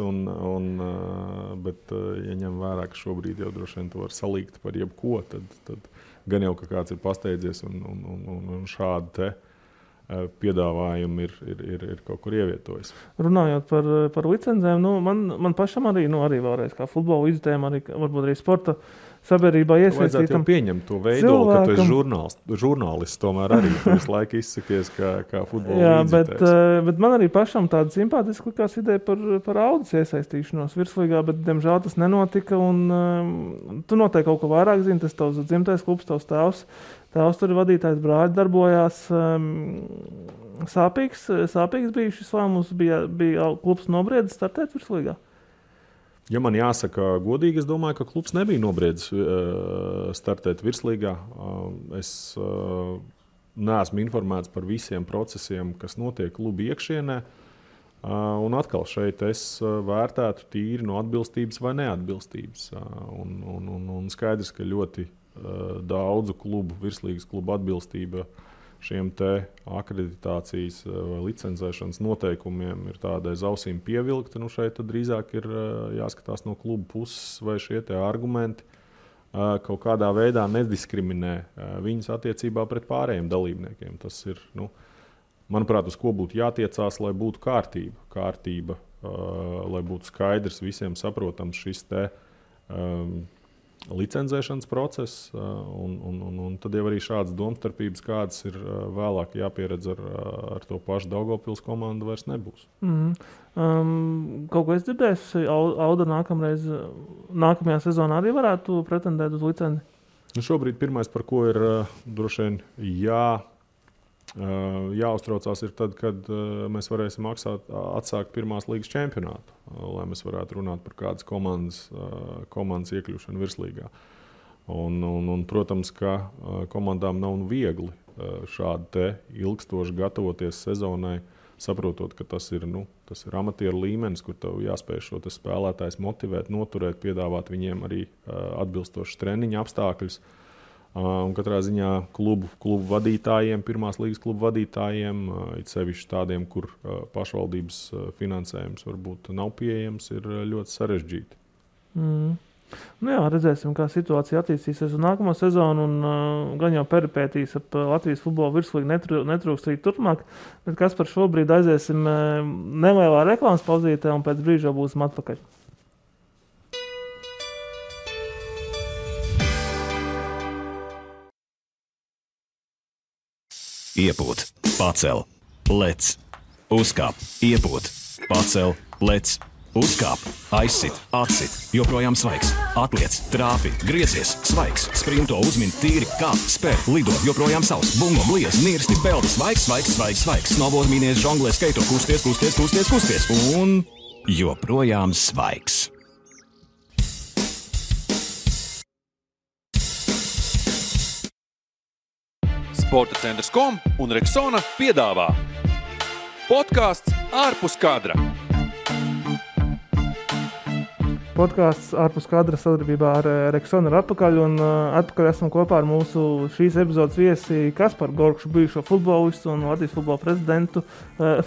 bet ja ņem vērā, ka šobrīd jau droši vien to var salīgt par jebko, tad gan jau, ka kāds ir pasteidzies un šādi te piedāvājumi ir kaut kur ievietojis. Runājot par licencēm, man pašam arī vēlreiz kā futbola līdzjutējiem, varbūt arī sporta sabiedrībā iesaistītam. Vajadzētu jau pieņemt to veidolu, ka tu esi žurnālists tomēr arī. Tu visu laiku izsakies kā futbola līdzjutējs. Bet man arī pašam tāda simpātiska likās ideja par Audas iesaistīšanos virslīgā, bet diemžēl tas nenotika. Tu noteikti kaut ko vairāk zini, tas tavs dzimtais klubs, tavs tēvs. Tēvs tur vadītājs brāļi darbojās. Sāpīgs bija šis lēmums, bija klubs nobriedis startēt virslīgā? Ja man jāsaka godīgi, es domāju, ka klubs nebija nobriedis startēt virslīgā. Es neesmu informēts par visiem procesiem, kas notiek kluba iekšienē. Un atkal šeit es vērtētu tīri no atbilstības vai neatbilstības. Un skaidrs, ka ļoti daudzu klubu, virslīgas klubu atbilstība šiem te akreditācijas vai licencēšanas noteikumiem ir tāda aiz ausīm pievilkta. Šeit tad drīzāk ir jāskatās no klubu puses, vai šie te argumenti kaut kādā veidā nediskriminē viņus attiecībā pret pārējiem dalībniekiem. Tas ir, manuprāt, uz ko būtu jātiecās, lai būtu kārtība, lai būtu skaidrs, visiem saprotams šis te licencēšanas process, un tad jau arī šādas domstarpības, kādas ir vēlāk jāpieredz ar to pašu Daugavpils komandu, vairs nebūs. Kaut ko es dzirdēju, Auda nākamajā sezonā arī varētu pretendēt uz licenci? Šobrīd pirmais, par ko ir droši vien jāuztraucās, ir tad, kad mēs varēsim atsākt pirmās līgas čempionātu, lai mēs varētu runāt par kādas komandas iekļūšanu virslīgā. Protams, ka komandām nav viegli šādi te ilgstoši gatavoties sezonai, saprotot, ka tas ir amatieru līmenis, kur tev jāspēj šo spēlētājs motivēt, noturēt, piedāvāt viņiem arī atbilstošas treniņa apstākļus. Un katrā ziņā klubu vadītājiem, pirmās līgas klubu vadītājiem, it sevišķi tādiem, kur pašvaldības finansējums varbūt nav pieejams, ir ļoti sarežģīti. Nu jā, redzēsim, kā situācija attīstīsies uz nākamo sezonu, un gan jau peripētīs ap Latvijas futbola virslīgu netrūks arī turpmāk, bet kas par šobrīd aiziesim nelielā reklāmas pauzītē, un pēc brīža būsim atpakaļ. Iepūt, pacel, lec, uzkāp, iepūt, pacel, lec, uzkāp, aizsit, atsit, joprojām svaigs, atliec, trāpi, griezies, svaigs, sprinto, uzmin, tīri, kāp, spēr, lido, joprojām savs, bungo, bliez, nirsti, peldi, svaigs, snowboard, mīnies, žonglē, skaito, kusties, un joprojām svaigs. Sporta centrs.com un Rexona piedāvā podkāsts ārpus kadra. Podkāsts ārpus kadra sadarbībā ar Rexona ir atpakaļ, un atpakaļ esam kopā ar mūsu šīs epizodes viesi Kasparu Gorkšu, bijušo futbolistu un Latvijas futbola prezidentu,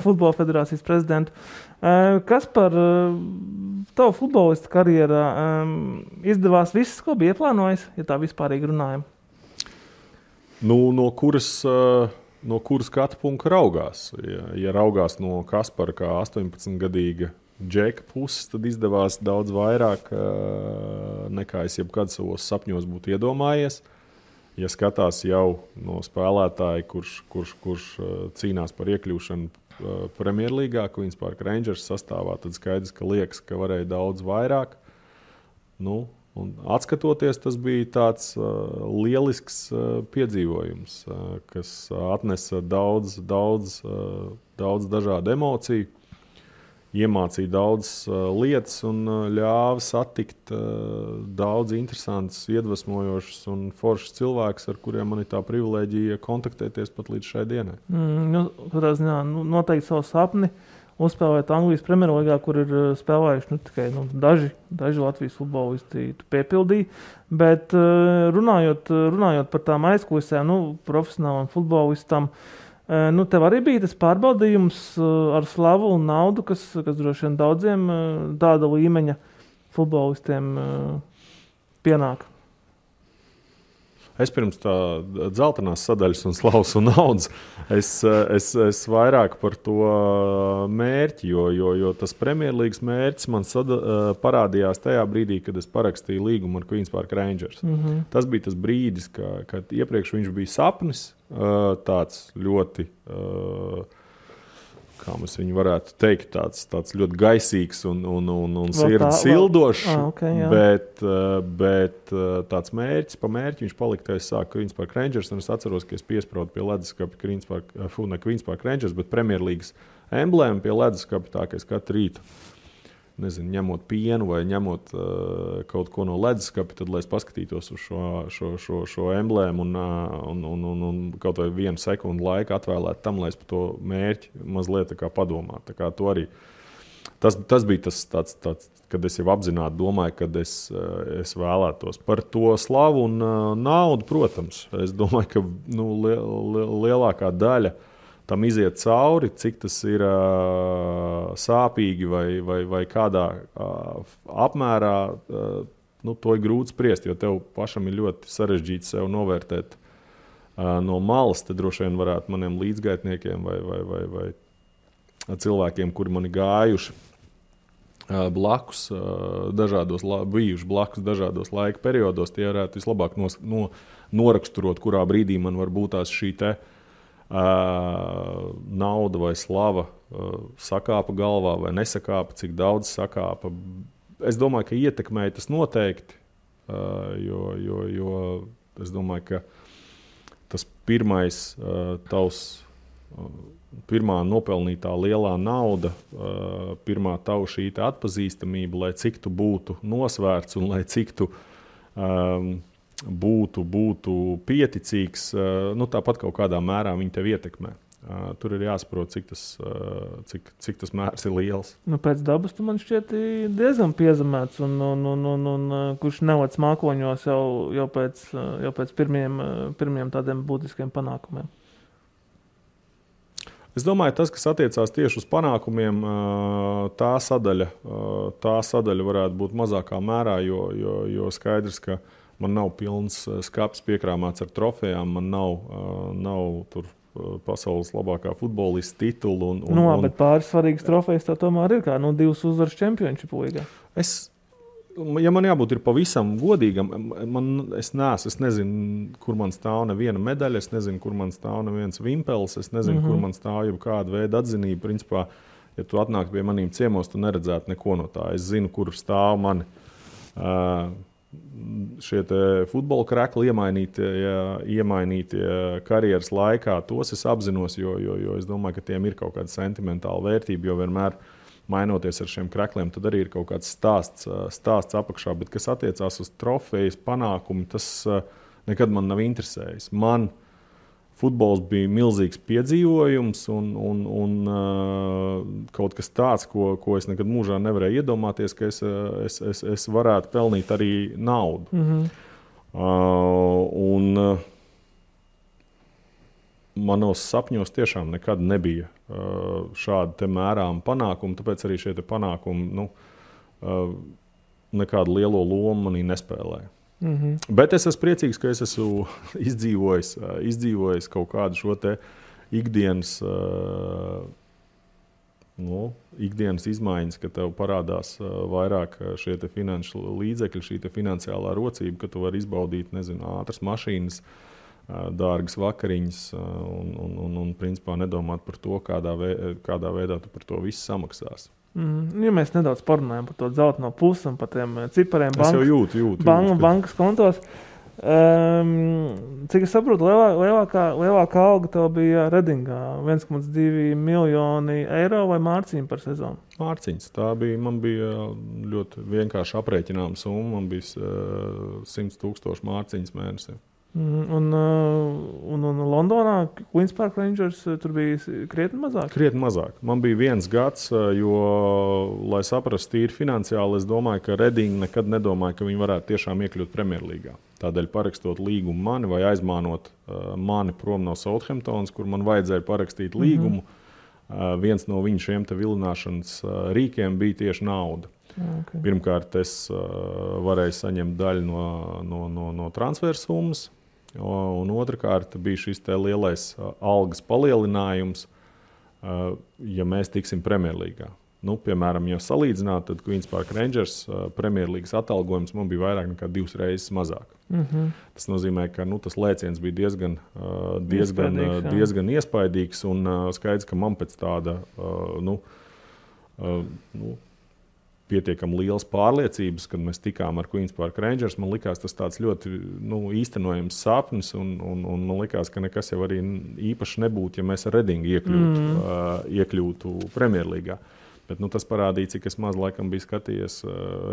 futbola federācijas prezidentu. Kaspar, tavu futbolista karjerā izdevās viss, ko bija ieplānojis, ja tā vispārīgi runājam? No kuras skatu punkta raugās? Ja raugās no Kaspara kā 18-gadīga džeka puses, tad izdevās daudz vairāk nekā es jebkad savos sapņos būtu iedomājies. Ja skatās jau no spēlētāja, kurš cīnās par iekļūšanu Premjerlīgā, Queens Park Rangers sastāvā, tad skaidrs, ka liekas, ka varēja daudz vairāk. Un atskatoties, tas bija tāds lielisks piedzīvojums, kas atnesa daudz dažādu emociju, iemācīja daudz lietas un ļāva satikt daudz interesantus, iedvesmojošus un foršus cilvēkus, ar kuriem man ir tā privilēģija kontaktēties pat līdz šai dienai. Noteikti savu sapni uzspēlēt Anglijas Premjerlīgā, kur ir spēlējuši tikai daži Latvijas futbolisti piepildīja. Bet runājot par tām aizkulisēm, profesionālam futbolistam, tev arī bija tas pārbaudījums ar slavu un naudu, kas droši vien daudziem tāda līmeņa futbolistiem pienāk. Es pirms tā dzeltenās sadaļas un slavas un naudas, es vairāk par to mērķi, jo tas Premjerlīgas mērķis man parādījās tajā brīdī, kad es parakstīju līgumu ar Queens Park Rangers. Tas bija tas brīdis, kad iepriekš viņš bija sapnis, tāds ļoti, kā mēs viņu varētu teikt, tāds ļoti gaisīgs un sirdi sildošs, bet tāds mērķis, pa mērķi viņš palika, kad es sāku Queens Park Rangers, un es atceros, ka es piespraudu pie leduskapa Queens Park Rangers, bet Premjerlīgas emblēma pie leduskapa, tā, ka es katru rītu, ņemot pienu vai ņemot kaut ko no leduskapa, tad, lai es paskatītos uz šo emblēmu un kaut vai 1 sekundu laika atvēlētu tam, lai es par to mērķi mazliet tā kā padomātu. Tā kā to arī. Tas bija tāds, kad es jau apzināti domāju, kad es vēlētos par to slavu un naudu, protams. Es domāju, ka lielākā daļa tam iziet cauri, cik tas ir sāpīgi vai kādā apmērā, to ir grūti spriest, jo tev pašam ir ļoti sarežģīti sev novērtēt no malas. Te droši vien varētu maniem līdzgaitniekiem vai cilvēkiem, kuri man ir gājuši blakus, bijuši blakus dažādos laika periodos, tie varētu vislabāk noraksturot, kurā brīdī man var būt tās šī te nauda vai slava sakāpa galvā vai nesakāpa, cik daudz sakāpa. Es domāju, ka ietekmēja tas noteikti, jo es domāju, ka tas pirmā nopelnītā lielā nauda, pirmā tavu šī atpazīstamība, lai cik tu būtu nosvērts un lai cik tu būtu pieticīgs, tāpat kaut kādā mērā viņi tev ietekmē. tur ir jāsaprot, cik tas mērs ir liels. Nu, pēc dabas tu man šķiet diezgan piezemēts un kurš nevāc mākoņos jau pēc pirmiem tādiem būtiskiem panākumiem. Es domāju, tas, kas attiecās tieši uz panākumiem, tā sadaļa varētu būt mazākā mērā, jo skaidrs, ka man nav pilns skapis piekrāmāts ar trofejām, man nav tur pasaules labākā futbolista titulu. Bet pāris svarīgas trofejas tā tomēr ir kā 2 uzvaras Championship līgā. Ja man jābūt ir pavisam godīgam, es nezinu, kur man stāv neviena medaļa, es nezinu, kur man stāv neviens vimpels, es nezinu, kur man stāv jau kāda veida atzinība. Principā, ja tu atnāktu pie maniem ciemos, tu neredzētu neko no tā. Es zinu, kur stāv mani šie futbola krekli iemainītie karjeras laikā. Tos es apzinos, jo es domāju, ka tiem ir kaut kāda sentimentāla vērtība, jo vienmēr mainoties ar šiem krekliem, tad arī ir kaut kāds stāsts apakšā. Bet kas attiecās uz trofejas panākumu, tas nekad man nav interesējis. Man futbols bija milzīgs piedzīvojums un kaut kas tāds, ko es nekad mūžā nevarēju iedomāties, ka es varētu pelnīt arī naudu. Manos sapņos tiešām nekad nebija šāda te mērāma panākuma, tāpēc arī šie te panākumi nekādu lielo lomu manī nespēlēja. Bet es esmu priecīgs, ka es esmu izdzīvojis kaut kādu šo te ikdienas izmaiņas, ka tev parādās vairāk šie te finanšu līdzekļi, šī te finansiālā rocība, ka tu vari izbaudīt, ātras mašīnas, dārgas vakariņas un principā nedomāt par to, kādā veidā tu par to visu samaksās. Ja mēs nedaudz parunājam par to dzelteno pusi un par tiem cipariem bankas kontos, cik es saprotu, lielākā alga tev bija Redingā, 1,2 miljoni eiro vai mārciņu par sezonu? Mārciņas. Man bija ļoti vienkārši aprēķināma summa, man bija 100,000 mārciņas mēnesī. Un Londonā Queen's Park Rangers tur bija krietni mazāk? Krietni mazāk. Man bija 1 gads, jo, lai saprastu tīri finansiāli, es domāju, ka Reading nekad nedomāja, ka viņi varētu tiešām iekļūt Premjerlīgā. Tādēļ parakstot līgumu mani vai aizmānot mani prom no Southamptonas, kur man vajadzēja parakstīt līgumu, viens no viņu šiem te vilināšanas rīkiem bija tieši nauda. Okay. Pirmkārt, es varēju saņemt daļu no transfersummas, un otrkārt bija šis te lielais algas palielinājums, ja mēs tiksim Premjerlīgā. Piemēram, ja salīdzināt, tad Queen's Park Rangers Premjerlīgas atalgojums man bija vairāk nekā 2 reizes mazāk. Tas nozīmē, ka tas lēciens bija diezgan iespaidīgs, un skaidrs, ka man pēc tāda pietiekami liels pārliecības, kad mēs tikām ar Queen's Park Rangers. Man likās tas tāds ļoti īstenojams sapnis, un man likās, ka nekas jau arī īpaši nebūtu, ja mēs ar Redingu iekļūtu Premjerlīgā. Bet tas parādīja, cik es maz laikam biju skatījies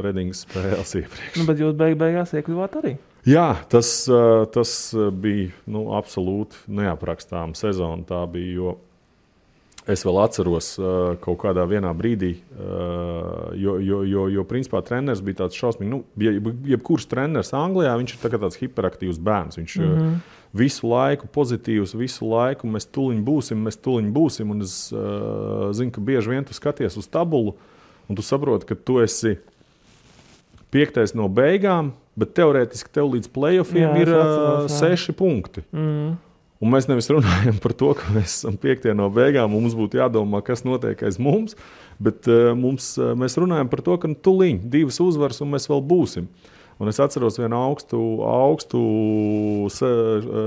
Redingas spēles iepriekš. Bet jūs beigās iekļuvāt arī? Jā, tas bija absolūti neaprakstāma sezona. Tā bija, jo es vēl atceros kaut kādā vienā brīdī, jo principā treneris bija tāds šausmīgi. Jebkurš treneris Anglijā, viņš ir tāds hiperaktīvs bērns. Viņš visu laiku pozitīvs, visu laiku mēs tuliņ būsim. Un es zinu, ka bieži vien tu skaties uz tabulu, un tu saproti, ka tu esi 5. no beigām, bet teorētiski tev līdz playoffiem ir 6 punkti. Un mēs nevis runājam par to, ka mēs esam 5. no beigām, un mums būtu jādomā, kas notiek aiz mums, bet mēs runājam par to, ka tuliņ 2 uzvaras, un mēs vēl būsim. Un es atceros vienu augstu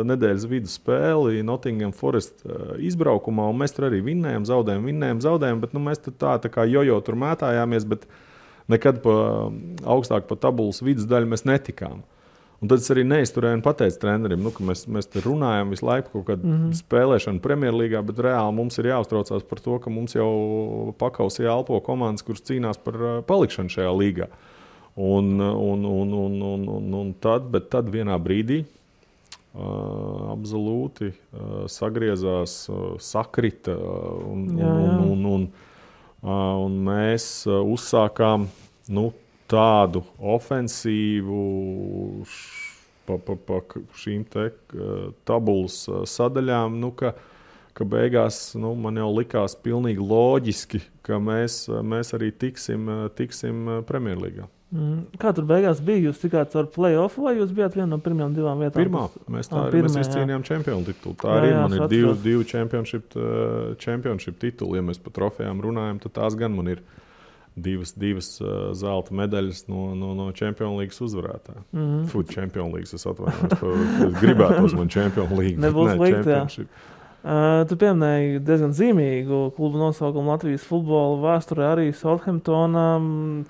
nedēļas vidu spēli Nottingham Forest izbraukumā, un mēs tur arī vinnējam, zaudējam, bet mēs tā kā jojo tur mētājāmies, bet nekad augstāk pa tabulas vidus daļu mēs netikām. Un tad es arī neizturēju un pateicu trenerim, ka mēs te runājam visu laiku kaut kādu spēlēšanu Premjerlīgā, bet reāli mums ir jāuztraucās par to, ka mums jau pakausī elpo komandas, kuras cīnās par palikšanu šajā līgā. Tad vienā brīdī absolūti sagriezās, sakrita un mēs uzsākām tādu ofensīvu pa šīm te tabulas sadaļām, ka beigās man jau likās pilnīgi loģiski, ka mēs arī tiksim Premjerlīgā. Kā tur beigās bija? Jūs tikāt ar play-offu vai jūs bijāt viena no pirmajām 2 vietām? Pirmā. Mēs izcīnījām čempionu titulu. Tā arī man ir divi championship tituli. Ja mēs par trofejām runājam, tad tās gan man ir divas zelta medaļas no Champions Leagues uzvarētāja. Food Champions Leagues, es atvainojos. Gribētos man Champions League. Nebūs slikti, jā. Tu pieminēji diezgan zīmīgu klubu nosaukumu Latvijas futbola vēsturē arī Southamptona,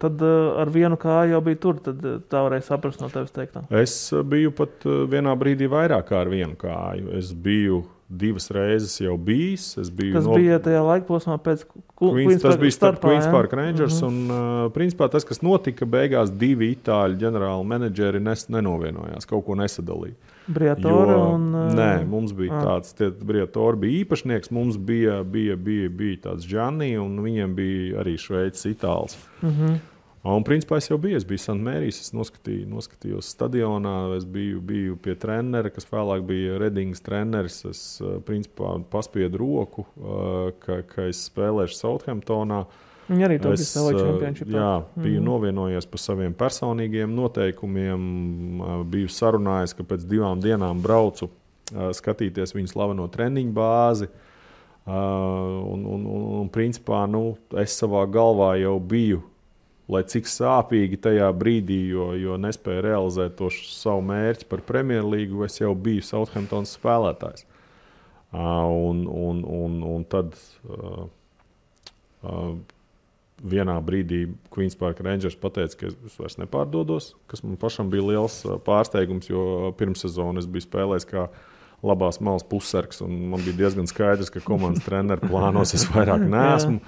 tad ar vienu kāju jau bija tur, tad tā varēja saprast no tevis teiktā. Es biju pat vienā brīdī vairāk kā ar vienu kāju. Es biju 2 reizes jau bijis. Tas bija tajā laikposmā pēc tas bija starp Queen's Park Rangers un principā tas, kas notika, beigās 2 itāļu ģenerāli menedžeri nenovienojās, kaut ko nesadalīja. Briatore un... Nē, mums bija tāds, Briatore bija īpašnieks, mums bija tāds Gianni un viņiem bija arī Šveicis itāls. Un principā es biju St. Mary's, es noskatījos stadionā, es biju pie trenera, kas vēlāk bija Redingas treneris, es principā paspiedu roku, ka es spēlēšu Southamptonā. Viņi arī to bija savā čempionšipā. Jā, biju novienojies par saviem personīgiem noteikumiem, biju sarunājis, ka pēc 2 dienām braucu skatīties viņu slaveno treniņu bāzi. Un principā, es savā galvā jau biju, lai cik sāpīgi tajā brīdī, jo nespēju realizēt to savu mērķi par Premjerlīgu, es jau biju Southamptons spēlētājs. Un tad vienā brīdī Queen's Park Rangers pateica, ka es vairs nepārdodos, kas man pašam bija liels pārsteigums, jo pirmssezonu es biju spēlējis kā labās malas pussargs, un man bija diezgan skaidrs, ka komandas treneru plānos es vairāk neesmu.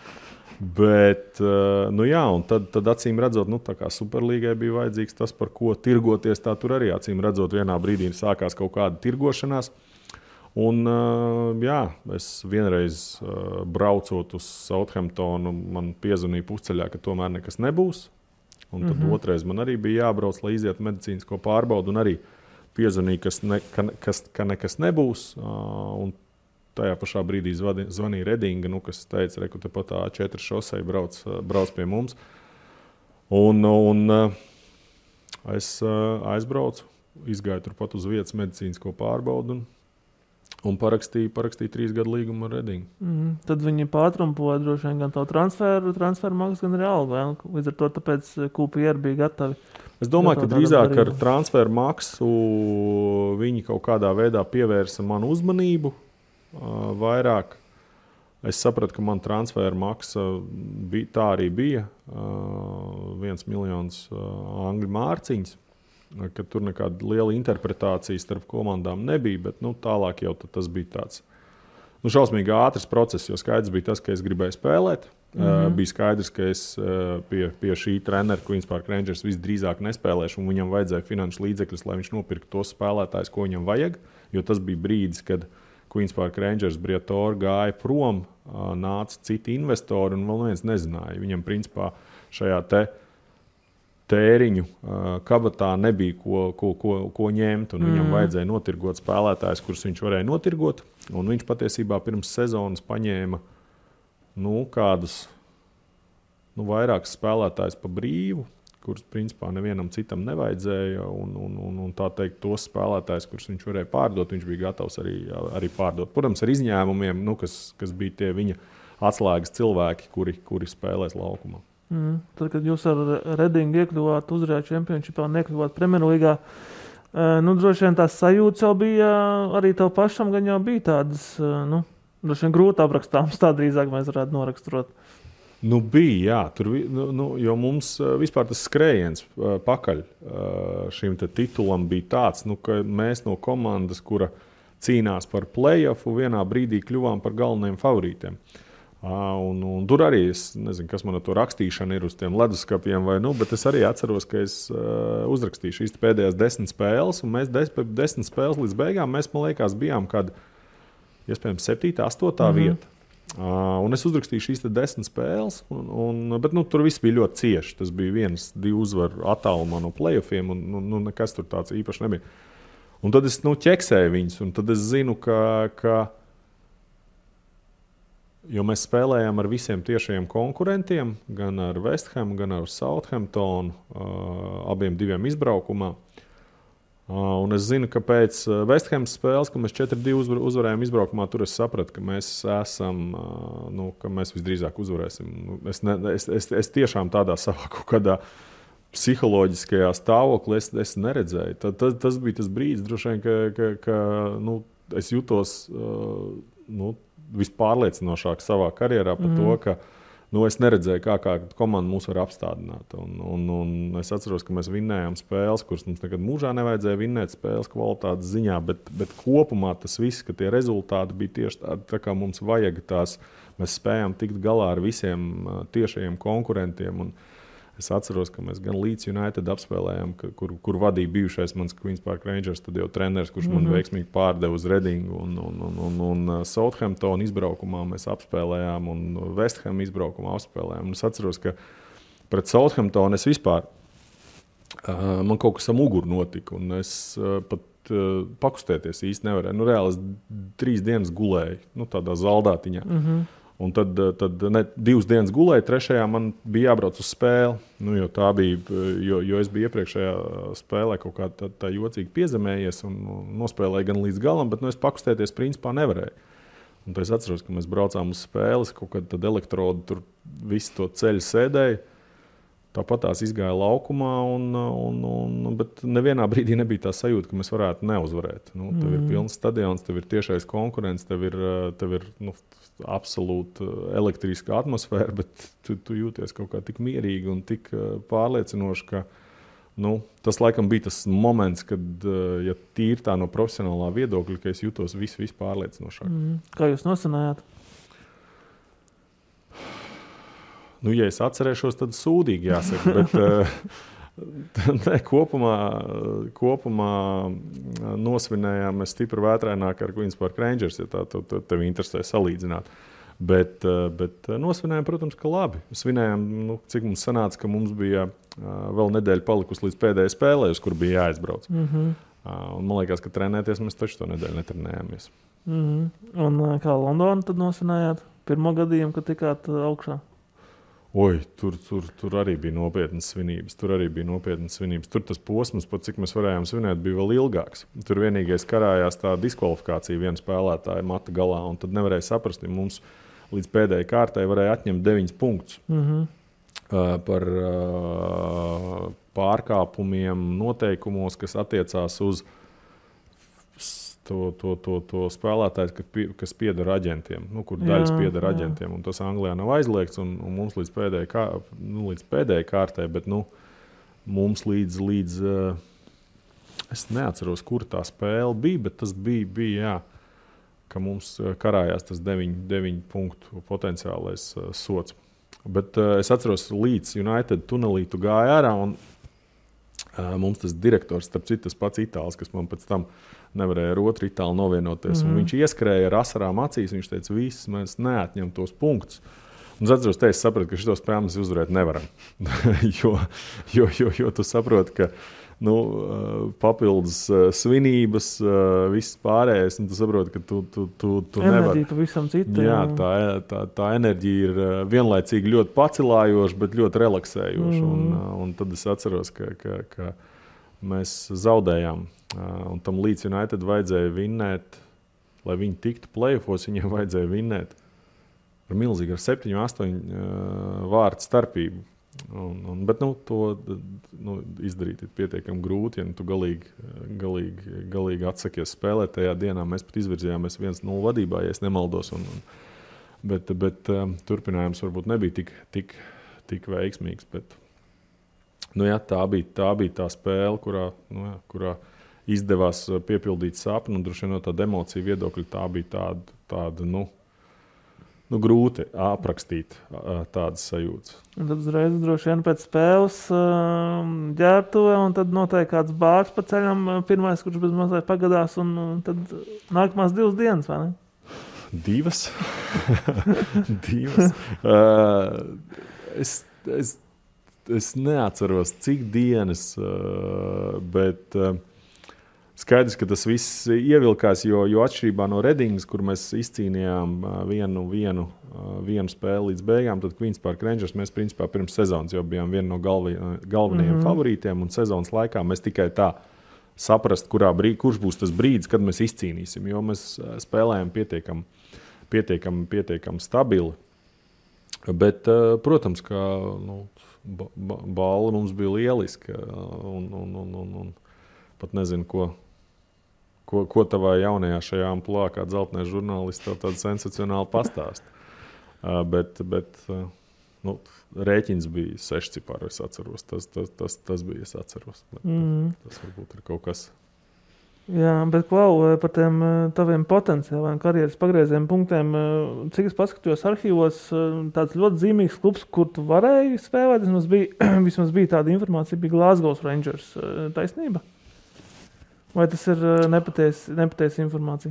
Bet, un tad acīm redzot, tā kā Superlīgai bija vajadzīgs tas, par ko tirgoties, tā tur arī acīm redzot vienā brīdī sākās kaut kāda tirgošanās. Un, es vienreiz braucot uz Southamptonu, man piezvanīja pusceļā, ka tomēr nekas nebūs. Un tad otrais man arī bija jābrauc, lai izietu medicīnisko pārbaudu, un arī piezvanīja, ka nekas nebūs. Un tajā pašā brīdī zvanīja Redinga, kas teica, ka tepat tā A4 šosei brauc pie mums. Un es aizbraucu, izgāju turpat uz vietas medicīnisko pārbaudu un parakstīju 3 gadu līgumu ar Redingu. Tad viņi pātrumpoja droši vien gan tavu transferu maksu, gan arī algu. Līdz ar to tāpēc QPR bija gatavi. Es domāju, ka drīzāk ar transferu maksu viņi kaut kādā veidā pievērsa manu uzmanību. Vairāk es sapratu, ka man transferu maksa tā arī bija 1 miljons angļu mārciņas, ka tur nekāda liela interpretācija starp komandām nebija, bet tālāk jau tas bija tāds šausmīgi ātrs process, jo skaidrs bija tas, ka es gribēju spēlēt. Bija skaidrs, ka es pie šī trenera Queen's Park Rangers visdrīzāk nespēlēšu, un viņam vajadzēja finanšu līdzekļus, lai viņš nopirktu tos spēlētājus, ko viņam vajag, jo tas bija brīdis, kad Queen's Park Rangers Briatore gāja prom, nāca citi investori, un vēl neviens nezināja. Viņam principā šajā tēriņu kabatā nebija ko ņemt, un viņam vajadzēja notirgot spēlētājus, kurus viņš varēja notirgot, un viņš patiesībā pirms sezonas paņēma kādus vairākus spēlētājus pa brīvu, kurus principā nevienam citam nevajadzēja, un tā teikt, tos spēlētājus, kurus viņš varēja pārdot, viņš bija gatavs arī pārdot. Protams, ar izņēmumiem, kas bija tie viņa atslēgas cilvēki, kuri spēlēs laukumā. Tad, kad jūs ar Redingu iekļuvāt uzvarējāt čempionšipā un iekļuvāt Premjerlīgā, droši vien tās sajūtas jau bija, arī tev pašam gan jau bija tādas, droši vien grūti aprakstāmas, tā drīzāk mēs varētu noraksturot. Bija, jā. Tur, jo mums vispār tas skrējiens pakaļ šim titulam bija tāds, ka mēs no komandas, kura cīnās par play-offu, vienā brīdī kļuvām par galvenajiem favorītiem. Un tur arī es nezinu, kas man ar to rakstīšana ir uz tiem leduskapiem, bet es arī atceros, ka es uzrakstīju šīs pēdējās 10 spēles, un mēs 10 spēles līdz beigām, man liekas, bijām kāda, iespējams, 7. 8. vieta. Un es uzrakstīju šīs 10 spēles, bet tur viss bija ļoti cieši. Tas bija 1-2 uzvaru attālumā no playoffiem, un nekas tur tāds īpaši nebija. Un tad es ķeksēju viņus, un tad es zinu, ka jo mēs spēlējām ar visiem tiešajiem konkurentiem, gan ar West Ham, gan ar Southamptonu, abiem diviem izbraukumā. Un es zinu, ka pēc West Ham spēles, kad mēs 4-2 uzvarējām izbraukumā, tur es sapratu, ka mēs esam, ka mēs visdrīzāk uzvarēsim. Es tiešām tādā savā kaut kādā psiholoģiskajā stāvoklī es neredzēju. Tas bija tas brīdis, droši vien, ka es jutos vispārliecinošāk savā karjerā par to, ka es neredzēju, kā komanda mūs var apstādināt. Un es atceros, ka mēs vinnējām spēles, kuras mums nekad mūžā nevajadzēja vinnēt spēles kvalitātes ziņā, bet kopumā tas viss, ka tie rezultāti bija tieši tādi, tā kā mums vajag tās. Mēs spējām tikt galā ar visiem tiešajiem konkurentiem. Un es atceros, ka mēs gan Leeds United apspēlējām, kur vadīja bijušais mans Queen's Park Rangers, tad jau treneris, kurš man veiksmīgi pārdeva uz Redingu, un Southampton izbraukumā mēs apspēlējām, un West Ham izbraukumā apspēlējām. Un es atceros, ka pret Southampton es vispār, man kaut kas ar muguru notika, un es pat pakustēties īsti nevarēju. Reāli es 3 dienas gulēju, tādā zaldātiņā. Un tad 2 dienas gulēju, 3. man bija jābrauc uz spēli. Jo tā bija, jo es biju iepriekšējā spēlē kaut kā tā jocīgi piezemējies un nospēlēju gan līdz galam, bet es pakustēties principā nevarēju. Un tad es atceros, ka mēs braucām uz spēles, kaut kāda elektroda tur visu to ceļu sēdēja. Tāpat tās izgāja laukumā, bet nevienā brīdī nebija tā sajūta, ka mēs varētu neuzvarēt. Tev ir pilns stadions, tev ir tiešais konkurents, tev ir absolūti elektriska atmosfēra, bet tu jūties kaut kā tik mierīgi un tik pārliecinoši, ka tas laikam bija tas moments, kad, ja tīri tā no profesionālā viedokļa, ka es jūtos viss pārliecinošāk. Kā jūs nosanājāt? Ja es atcerēšos, tad sūdīgi jāsaka, bet kopumā nosvinējām mēs stipri vētraināk ar Queen's Park Rangers, ja tā tev interesē salīdzināt. Bet nosvinējām, protams, ka labi. Svinējām, cik mums sanāca, ka mums bija vēl nedēļa palikusi līdz pēdējai spēlē, uz kur bija jāizbrauc. Un man liekas, ka trenēties mēs taču to nedēļu netrenējāmies. Un kā Londonu tad nosvinējāt? Pirmo gadījumu, kad tikāt augšā? Tur arī bija nopietnas svinības. Tur tas posms, pat cik mēs varējām svinēt, bija vēl ilgāks. Tur vienīgais karājās tā diskvalifikācija viena spēlētāja mata galā, un tad nevarēja saprast, ja mums līdz pēdējai kārtai varēja atņemt 9 punktus par pārkāpumiem noteikumos, kas attiecās uz to spēlētājs, kas pieder aģentiem, kur daļas pieder aģentiem. Un tas Anglijā nav aizliegts, un mums līdz pēdējai kārtai, bet mums līdz es neatceros, kur tā spēle bija, bet tas bija ka mums karājās tas 9 punktu potenciālais sots. Bet es atceros, Leeds United tunelī tu gāja ārā, un mums tas direktors, starp citu, tas pats itālis, kas man pēc tam nevarēja ar otru itāli novienoties. Un viņš ieskrēja ar asarām acīs, viņš teica, viss, mēs neatņem tos punktus. Un es atceros, es sapratu, ka šito spēli mēs uzvarēt nevaram. jo tu saproti, ka papildus svinības, viss pārējais, un tu saproti, ka tu nevar. Enerģija pavisam cita. Jā, tā enerģija ir vienlaicīgi ļoti pacilājoša, bet ļoti relaksējoša. Un tad es atceros, ka mēs zaudējām. Un tam Leeds United vajadzēja vinnēt, lai viņi tiktu play-offos, viņiem vajadzēja vinnēt ar milzīgi, ar 7-8 vārtu starpību. Bet to izdarīt ir pietiekami grūti, ja tu galīgi atsakies spēlēt tajā dienā. Mēs pat izvirzījāmies 1-0 vadībā, ja es nemaldos. Bet turpinājums varbūt nebija tik veiksmīgs. Bet, tā bija tā spēle, kurā izdevās piepildīt sapni, un droši vien no tāda emocija viedokļa tā bija tāda grūti aprakstīt tādas sajūtas. Un tad uzreiz droši vien pēc spēles ģērbtuve, un tad noteikti kāds bārs pa ceļam, pirmais, kurš bez mazliet pagadās, un tad nākamās 2 dienas, vai ne? 2? 2. Es neatceros, cik dienas, bet skaidrs, ka tas viss ievilkās, jo atšķirībā no Redingas, kur mēs izcīnījām vienu spēli līdz beigām, tad Queens Park Rangers mēs principā pirms sezonas jau bijām viena no galvenajiem favorītiem, un sezonas laikā mēs tikai tā saprast, kurš būs tas brīdis, kad mēs izcīnīsim, jo mēs spēlējam pietiekami stabili. Bet, protams, ka balva mums bija lieliska, un pat nezinu, ko tavā jaunajā šajā amplitūdā, kā dzeltenais žurnālists, tev tādu sensacionāli pastāst. Bet rēķins bija 6 cipari, es atceros. Tas bija, es atceros. Tas varbūt ir kaut kas. Jā, bet par tiem taviem potenciāliem karjeras pagrieziena punktiem, cik es paskatījos arhīvos, tāds ļoti zīmīgs klubs, kur tu varēji spēlēt, vismaz bija tāda informācija, bija Glasgow Rangers. Taisnība? Vai tas ir nepatiesa informācija?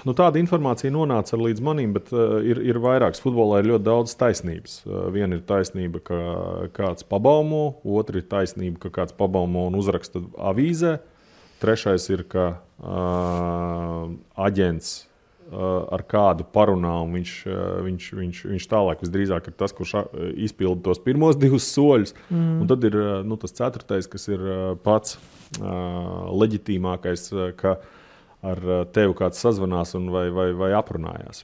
Tāda informācija nonāca līdz manim, bet ir vairāks. Futbolā ir ļoti daudz taisnības. Viena ir taisnība, ka kāds pabaumo, otra ir taisnība, ka kāds pabaumo un uzraksta avīzē. Trešais ir, ka aģents ar kādu parunā, un viņš tālāk visdrīzāk ir tas, kurš izpilda tos pirmos 2 soļus. Un tad ir tas 4., kas ir pats leģitīmākais, ka ar tevi kāds sazvanās vai aprunājās.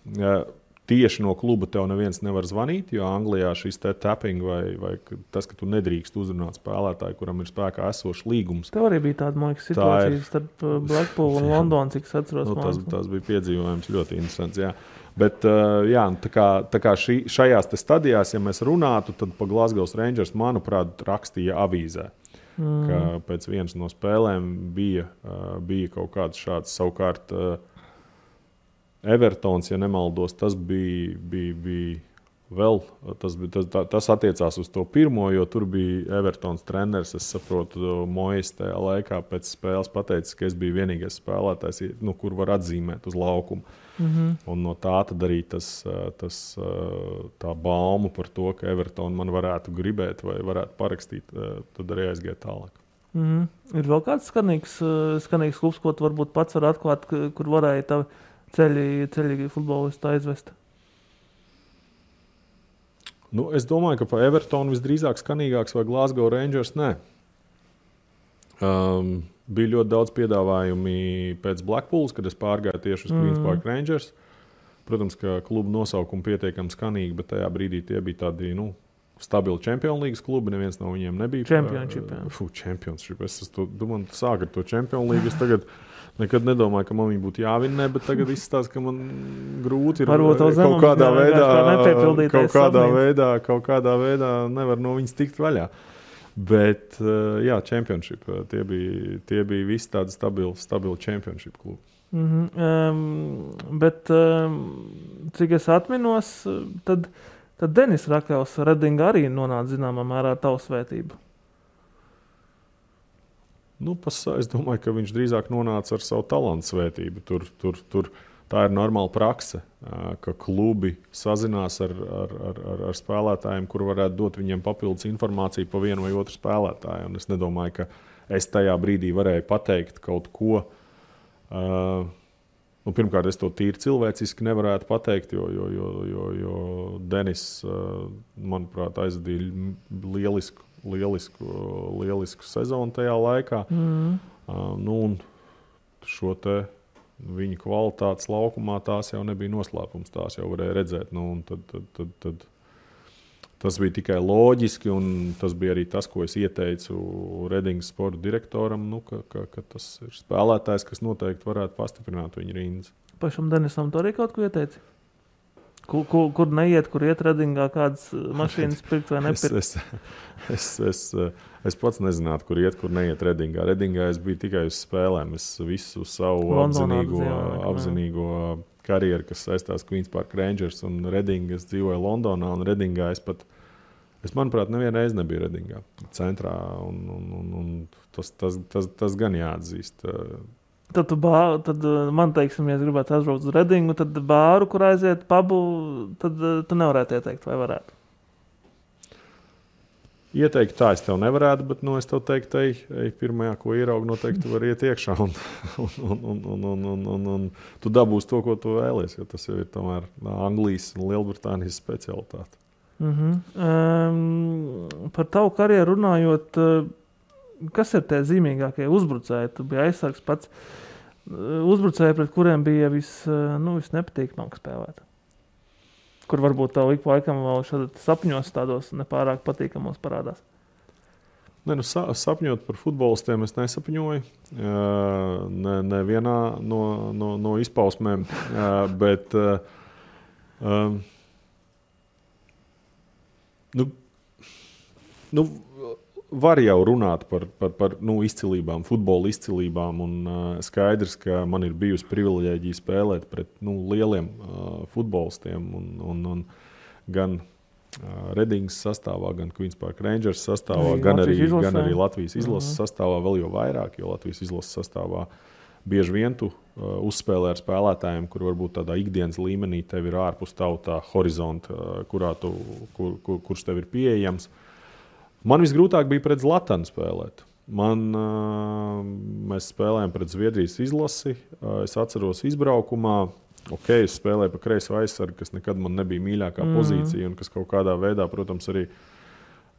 Tieši no kluba tev neviens nevar zvanīt, jo Anglijā šis tapping vai tas, ka tu nedrīkst uzrunāt spēlētāju, kuram ir spēkā esošs līgums. Tev arī bija tāda, man liekas, situācija starp Blackpool un Londonu, cik es atceros. Tas bija piedzīvojums ļoti interesants, jā. Bet tā kā šajās stadijās, ja mēs runātu, tad pa Glasgow Rangers, manuprāt, rakstīja avīzē. Ka pēc vienas no spēlēm bija kaut kāds šāds. Savukārt Evertons, ja nemaldos, tas bija vēl, tas attiecās uz to pirmo, jo tur bija Evertons treneris, es saprotu, Mojas tajā laikā pēc spēles pateicis, ka es biju vienīgais spēlētājs, kur var atzīmēt uz laukumu. Un no tā tad arī tā bauma par to, ka Everton man varētu gribēt vai varētu parakstīt, tad arī aizgāja tālāk. Ir vēl kāds skanīgs klubs, ko tu varbūt pats var atklāt, kur varēja tavi ceļi futbolistu aizvest? Es domāju, ka pa Evertonu visdrīzāk skanīgāks vai Glasgow Rangers nē. Bija ļoti daudz piedāvājumi pēc Blackpools, kad es pārgāju tieši uz Queens Park Rangers. Protams, ka klubu nosaukumi pietiekami skanīgi, bet tajā brīdī tie bija tādi stabili Champions League klubi. Neviens no viņiem nebija. Championship. Es domāju, sāk ar to Champions League. Es tagad nekad nedomāju, ka man viņa būtu jāvinē, bet tagad izstāst, ka man grūti ir kaut kādā veidā nevar no viņas tikt vaļā. Bet, jā, Championship, tie bija visi tādi stabili Championship klubi. Bet, cik es atminos, tad Denis Rakels Redinga arī nonāca zināmā mērā tavu svētību. Es domāju, ka viņš drīzāk nonāca ar savu talantu svētību. Tur tā ir normāla prakse, ka klubi sazinās ar spēlētājiem, kur varētu dot viņiem papildus informāciju par vienu vai otru spēlētāju. Un es nedomāju, ka es tajā brīdī varēju pateikt kaut ko. Pirmkārt, es to tīri cilvēciski nevarētu pateikt, jo Denis, manuprāt, aizvadīja lielisku sezonu tajā laikā. Un šo te viņa kvalitātes laukumā tās jau nebija noslēpums, tās jau varēja redzēt. Tad tas bija tikai loģiski, un tas bija arī tas, ko es ieteicu Redingas sporta direktoram, ka tas ir spēlētājs, kas noteikti varētu pastiprināt viņa rindas. Pašam Denisam tu arī kaut ko ieteici? Kur neiet, kur iet Redingā, kādas mašīnas pirkt vai nepirkt? Es pats nezinātu, kur iet, kur neiet Redingā. Redingā es biju tikai uz spēlēm. Es visu savu apzinīgo karjeru, kas saistās Queen's Park Rangers un Redinga, es dzīvoju Londonā un Redingā. Es manuprāt, nevienu reizi nebiju Redingā centrā, un tas gan jāatzīst. Tad man, teiksim, ja es gribētu aizbraukt uz Redingu, tad bāru, kur aiziet pubu, tad tu nevarētu ieteikt, vai varētu? Ieteikt tā es tev nevarētu, bet es tev teiktu, ej pirmajā, ko ieraugi, noteikti var iet iekšā un tu dabūsi to, ko tu vēlies, jo tas jau ir tomēr Anglijas un Lielbritānijas specialitāte. Par tavu karjeru runājot, kas ir tie zīmīgākie uzbrucēji? Tu biji aizsargs pats. Uzbrucēji, pret kuriem bija visnepatīkamāk spēlēt. Kur varbūt tev ik pa laikam vēl šādi sapņos tādos nepārāk patīkamos parādās? Sapņot par futbolistiem es nesapņoju. Nevienā no izpausmēm. Bet var jau runāt par izcilībām, futbola izcilībām. Un skaidrs, ka man ir bijusi privileģija spēlēt pret lieliem futbolistiem. Un gan Redingas sastāvā, gan Queen's Park Rangers sastāvā, gan arī Latvijas izlases sastāvā, vēl jau vairāk, jo Latvijas izlases sastāvā bieži vien tu uzspēlē ar spēlētājiem, kur varbūt tādā ikdienas līmenī tev ir ārpus tā horizonta, kurš tev ir pieejams. Man visgrūtāk bija pret Zlatanu spēlēt. Mēs spēlējām pret Zviedrijas izlasi. Es atceros izbraukumā. Es spēlēju pa kreiso aizsargu, kas nekad man nebija mīļākā pozīcija un kas kaut kādā veidā, protams, arī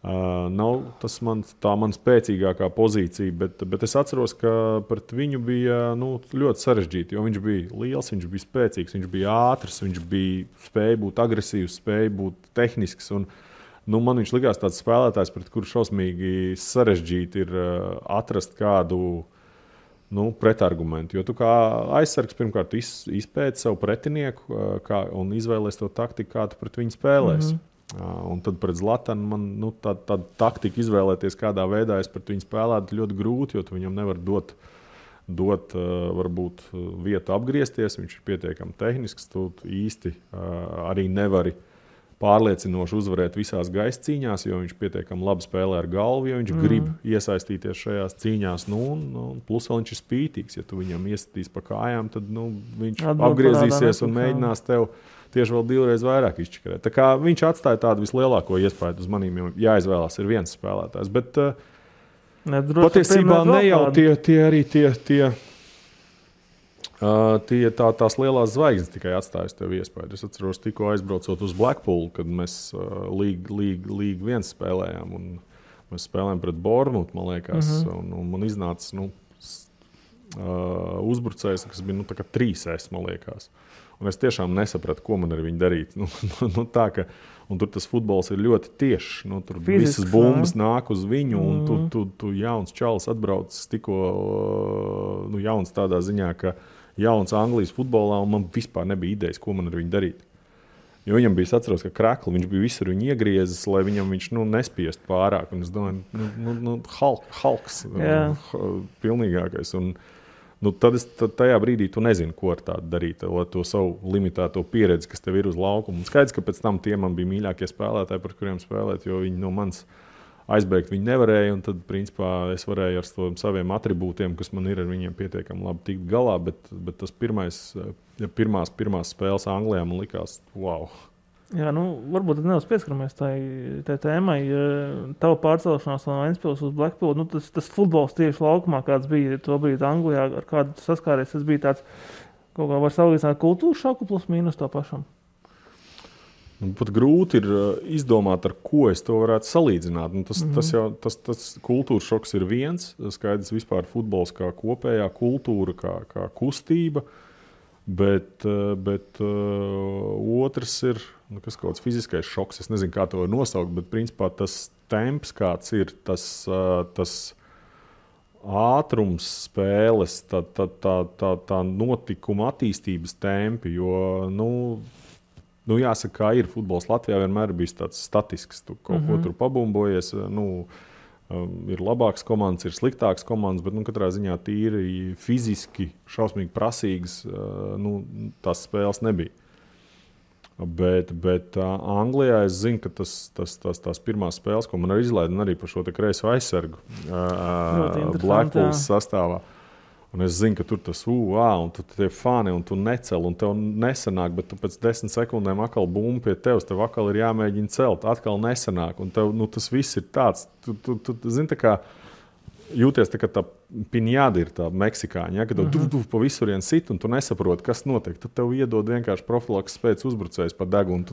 nav tā man spēcīgākā pozīcija. Bet es atceros, ka pret viņu bija ļoti sarežģīti, jo viņš bija liels, viņš bija spēcīgs, viņš bija ātrs, viņš spēja būt agresīvs, spēja būt tehnisks. Man viņš likās tāds spēlētājs, pret kuru šausmīgi sarežģīti ir atrast kādu pretargumentu. Jo tu kā aizsargs pirmkārt izpēti savu pretinieku un izvēlies to taktiku, kā tu pret viņu spēlēs. Un tad pret Zlatanu man tāda taktika izvēlēties, kādā veidā es pret viņu spēlētu, ļoti grūti, jo tu viņam nevar dot varbūt vietu apgriezties. Viņš ir pietiekami tehnisks, tu īsti arī nevari pārliecinoši uzvarēt visās gaisa cīņās, jo viņš pietiekami labi spēlē ar galvu, jo viņš grib iesaistīties šajās cīņās. Plus vēl viņš ir spītīgs. Ja tu viņam iesitīs pa kājām, tad viņš apgriezīsies un mēģinās tev tieši vēl divreiz vairāk izčakarēt. Tā kā viņš atstāja tādu vislielāko iespēju uz manīm, jo jāizvēlās ir viens spēlētājs. Bet patiesībā ne jau tās lielās zvaigznes tikai atstājas tev iespēju. Es atceros, tikko aizbraucot uz Blackpool, kad mēs Līgu 1 spēlējām. Un mēs spēlējām pret Bournemouth, man liekas. Un man iznāca uzbrucējs, kas bija 3S, man liekas. Un es tiešām nesapratu, ko man ar viņu darīt. Un tur tas futbols ir ļoti tiešs. Tur visas bumbas nāk uz viņu, un tu jauns čalis atbraucis tikko jauns tādā ziņā, ka jauns Anglijas futbolā, un man vispār nebija idejas, ko man ar viņu darīt. Jo viņam bija, atceros, ka krakli, viņš bija visur viņu iegriezis, lai viņš nespiest pārāk. Un es domāju, Halks, pilnīgākais. Un tad tajā brīdī tu nezini, ko ar tādu darīt, lai to savu limitēto pieredzi, kas tev ir uz laukuma. Un skaidrs, ka pēc tam tie man bija mīļākie spēlētāji, par kuriem spēlēt, jo viņi no manis aizbēgt viņi nevarēja, un tad, principā, es varēju ar saviem atribūtiem, kas man ir, ar viņiem pietiekami labi tikt galā, bet tas pirmās spēles Anglijā man likās, wow. Jā, varbūt nedaudz pieskaramies tai tēmai. Tava pārcelšanās no Ventspils uz Blackpool, tas futbols tieši laukumā, kāds bija to brīdi Anglijā, ar kādu saskāries, tas bija tāds, kaut kā var salīdzināt kultūras šoku plus mīnus to pašam. Pat grūti ir izdomāt, ar ko es to varētu salīdzināt. Tas kultūras šoks ir viens, skaidrs vispār futbols kā kopējā kultūra, kā kustība, bet otrs ir kas kaut kāds fiziskais šoks. Es nezinu, kā to var nosaukt, bet principā tas temps, kāds ir, tas ātrums spēles, tā notikuma attīstības tempi, jo, Nu, jāsaka, kā ir futbols Latvijā, vienmēr ir bijis tāds statisks. Tu kaut ko tur pabumbojies. Ir labākas komandas, ir sliktākas komandas, bet katrā ziņā tīri fiziski, šausmīgi prasīgas tās spēles nebija. Bet Anglijā es zinu, ka tās pirmās spēles, ko man arī izlaida, arī par šo kreiso aizsargu Blackpools sastāvā. Un es zinu, ka tur tas un tu tie fani, un tu necel, un tev nesanāk, bet tu pēc 10 sekundēm atkal bumbu pie tevis, tev atkal ir jāmēģina celt, atkal nesanāk, un tev tas viss ir tāds. Tu zini, tā kā jūties tā, ka tā piņāda ir tā meksikāņa, ja, ka tev pa visurien sit, un tu nesaproti, kas notiek. Tad tev iedod vienkārši profilaks spēc uzbrucējs pa degunu.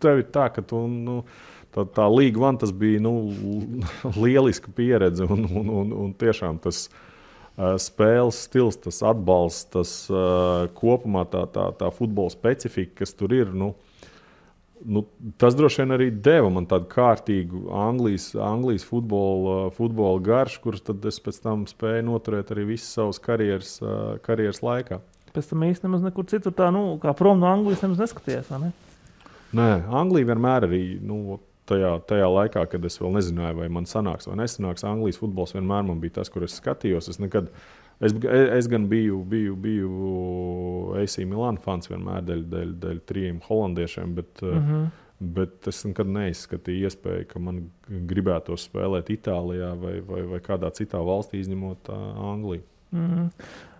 Tev ir tā, ka tā League One tas bija lieliska pieredze, un tiešām tas spēles stils, tas atbalsts, tas kopumā tā futbola specifika, kas tur ir, tas droši vien arī deva man tādu kārtīgu Anglijas futbola garšu, kurus tad es pēc tam spēju noturēt arī visas savas karjeras laikā. Pēc tam īsti nemaz nekur citur tā, kā prom no Anglijas nemaz neskaties, vai ne? Nē, Anglija vienmēr arī, tajā laikā, kad es vēl nezināju, vai man sanāks vai nesanāks, Anglijas futbols vienmēr man bija tas, kur es skatījos. Es gan biju AC Milan fans vienmēr dēļ 3 holandiešiem, bet es nekad neizskatīju iespēju, ka man gribētos spēlēt Itālijā vai kādā citā valstī, izņemot Angliju.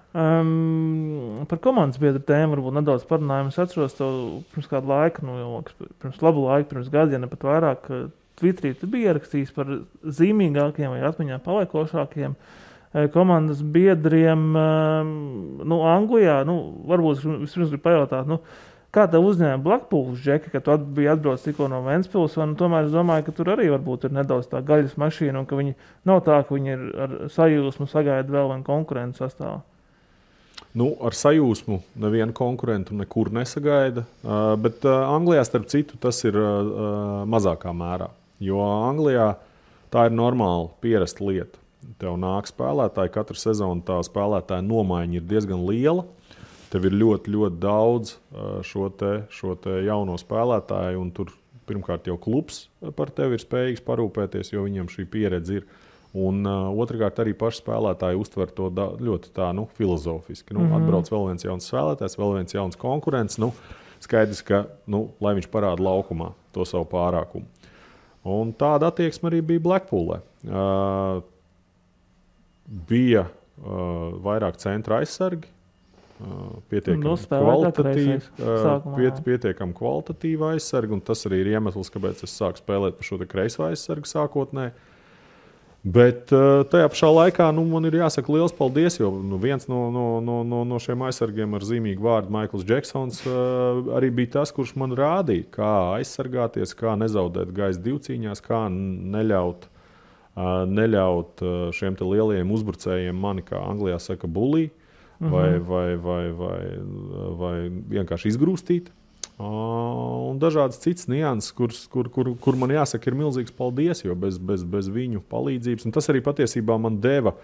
Par komandas biedru tēmu varbūt nedaudz parunājam. Es atceros to pirms kādu laiku, pirms labu laiku, pirms gadu, ja ne pat vairāk, Twitterī tu biji ierakstījis par zīmīgākiem vai atmiņā paliekošākiem komandas biedriem Anglijā. Varbūt vispirms gribu pajautāt, kā tev uzņēma Blackpools, Džeki, ka tu biji atbrauc tikko no Ventspils, un tomēr es domāju, ka tur arī varbūt ir nedaudz tā gaļas mašīna, un ka viņi nav tā, ka viņi ir ar sajūsmu sagaida vēl vienu konkurentu sastāvā. Ar sajūsmu nevienu konkurentu nekur nesagaida, bet Anglijā, starp citu, tas ir mazākā mērā. Jo Anglijā tā ir normāla pierasta lieta. Tev nāk spēlētāji, katru sezonu tā spēlētāja nomaiņa ir diezgan liela. Tev ir ļoti, ļoti daudz šo te jauno spēlētāju, un tur pirmkārt jau klubs par tevi ir spējīgs parūpēties, jo viņam šī pieredze ir. Un otrkārt arī paši spēlētāji uztver to ļoti tā, filozofiski. Atbrauc vēl viens jauns spēlētājs, vēl viens jauns konkurents. Skaidrs, ka, lai viņš parāda laukumā to savu pārākumu. Un tāda attieksme arī bija Blackpoolē. Bija vairāk centra aizsargi, pietiekami kvalitatīva aizsargi, un tas arī ir iemesls, kāpēc es sāku spēlēt par šo kreiso aizsargu sākotnēji. Bet tajā pašā laikā man ir jāsaka liels paldies, jo viens no šiem aizsargiem ar zīmīgu vārdu Maikls Džeksons arī bija tas, kurš man rādīja, kā aizsargāties, kā nezaudēt gaisa divcīņās, kā neļaut šiem te lielajiem uzbrucējiem mani, kā Anglijā saka, bully, vai vienkārši izgrūstīt. Un dažādas citas nianses, kur man jāsaka, ir milzīgs paldies, jo bez viņu palīdzības. Un tas arī patiesībā man deva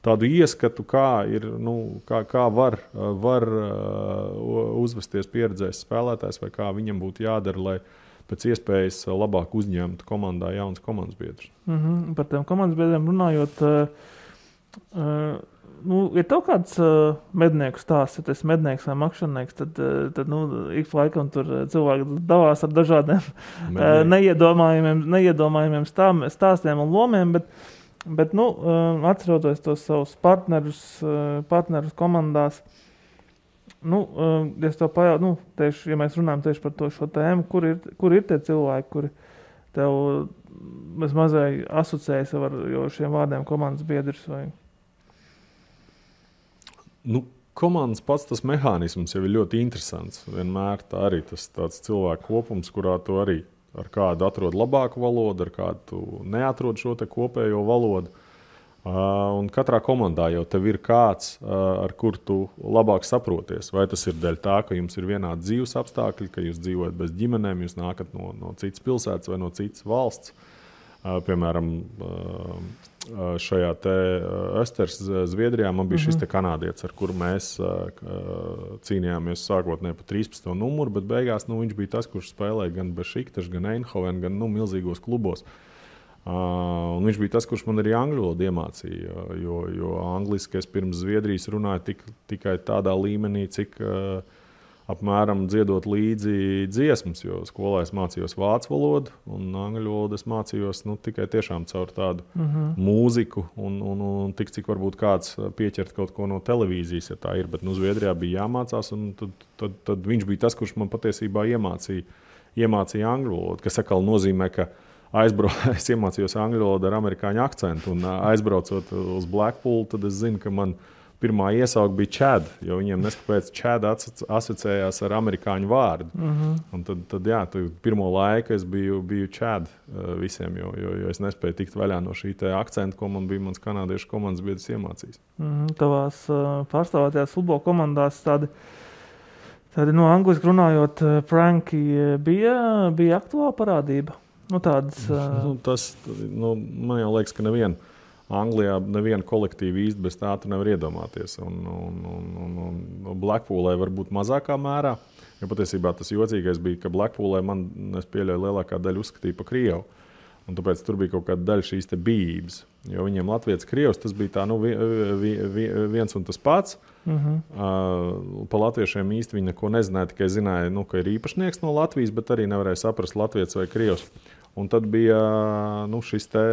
tādu ieskatu, kā var uzvesties pieredzējis spēlētājs, vai kā viņam būtu jādara, lai pēc iespējas labāk uzņemtu komandā jaunas komandas biedrus. Par tiem komandas biedriem runājot, ir tev kāds mednieku stāsts, ja tu esi mednieks vai makšķernieks, tad ik pa laikam tur cilvēki davās ar dažādiem neiedomājumiem stāstiem un lomiem, bet atceroties tos savus partnerus komandās, es tev pajautāju, tieši, ja mēs runājam tieši par šo tēmu, kur ir tie cilvēki, kuri tev mazai asociējas ar šiem vārdiem komandas biedrs vai... Komandas pats tas mehānisms jau ir ļoti interesants. Vienmēr tā arī tas tāds cilvēku kopums, kurā tu arī ar kādu atrod labāku valodu, ar kādu tu neatrod šo te kopējo valodu. Un katrā komandā jau tev ir kāds, ar kur tu labāk saproties. Vai tas ir dēļ tā, ka jums ir vienādi dzīves apstākļi, ka jūs dzīvojat bez ģimenēm, jūs nākat no citas pilsētas vai no citas valsts. Piemēram, šajā te Östers Zviedrijā man bija šis te kanādietis, ar kuru mēs cīnījāmies sākotnēji pa 13. numuru, bet beigās viņš bija tas, kurš spēlēja gan Bešiktaš, gan Eindhoven, gan milzīgos klubos. Un viņš bija tas, kurš man arī angļu valodu iemācīja, jo angliski es pirms Zviedrijas runāju tikai tādā līmenī, cik apmēram dziedot līdzi dziesmas, jo skolā es mācījos vācu valodu un angļu valodu es mācījos tikai tiešām caur tādu mūziku un tik, cik varbūt kāds pieķert kaut ko no televīzijas, ja tā ir, bet Zviedrijā bija jāmācās un tad viņš bija tas, kurš man patiesībā iemācīja angļu valodu, kas atkal nozīmē, ka es iemācījos angļu valodu ar amerikāņu akcentu un aizbraucot uz Blackpool, tad es zinu, ka man pirmā iesauka bija Chad, jo viņiem neskapēc Chad asociējās ar amerikāņu vārdu. Un tad pirmo laiku es biju Chad visiem, jo es nespēju tikt vaļā no šī te akcenta, ko man bija mans kanādiešu komandas biedrs iemācījis. Tavās pārstāvētajās futbola komandās tādi angliski runājot pranki bija aktuāla parādība? Tādas... man jau liekas, ka Anglijā neviena kolektīva īsti bez tā tu nevar iedomāties. Un Blackpoolē varbūt mazākā mērā, jo patiesībā tas jocīgais bija, ka Blackpoolē es pieļauju lielākā daļa uzskatīja pa Krievu. Un tāpēc tur bija kaut kāda daļa šīs te bijības. Jo viņiem Latvijas Krievs tas bija tā, viens un tas pats. Pa latviešiem īsti viņi neko nezināja, tikai zināja, ka ir īpašnieks no Latvijas, bet arī nevarēja saprast Latvijas vai Krievs. Un tad bija šis te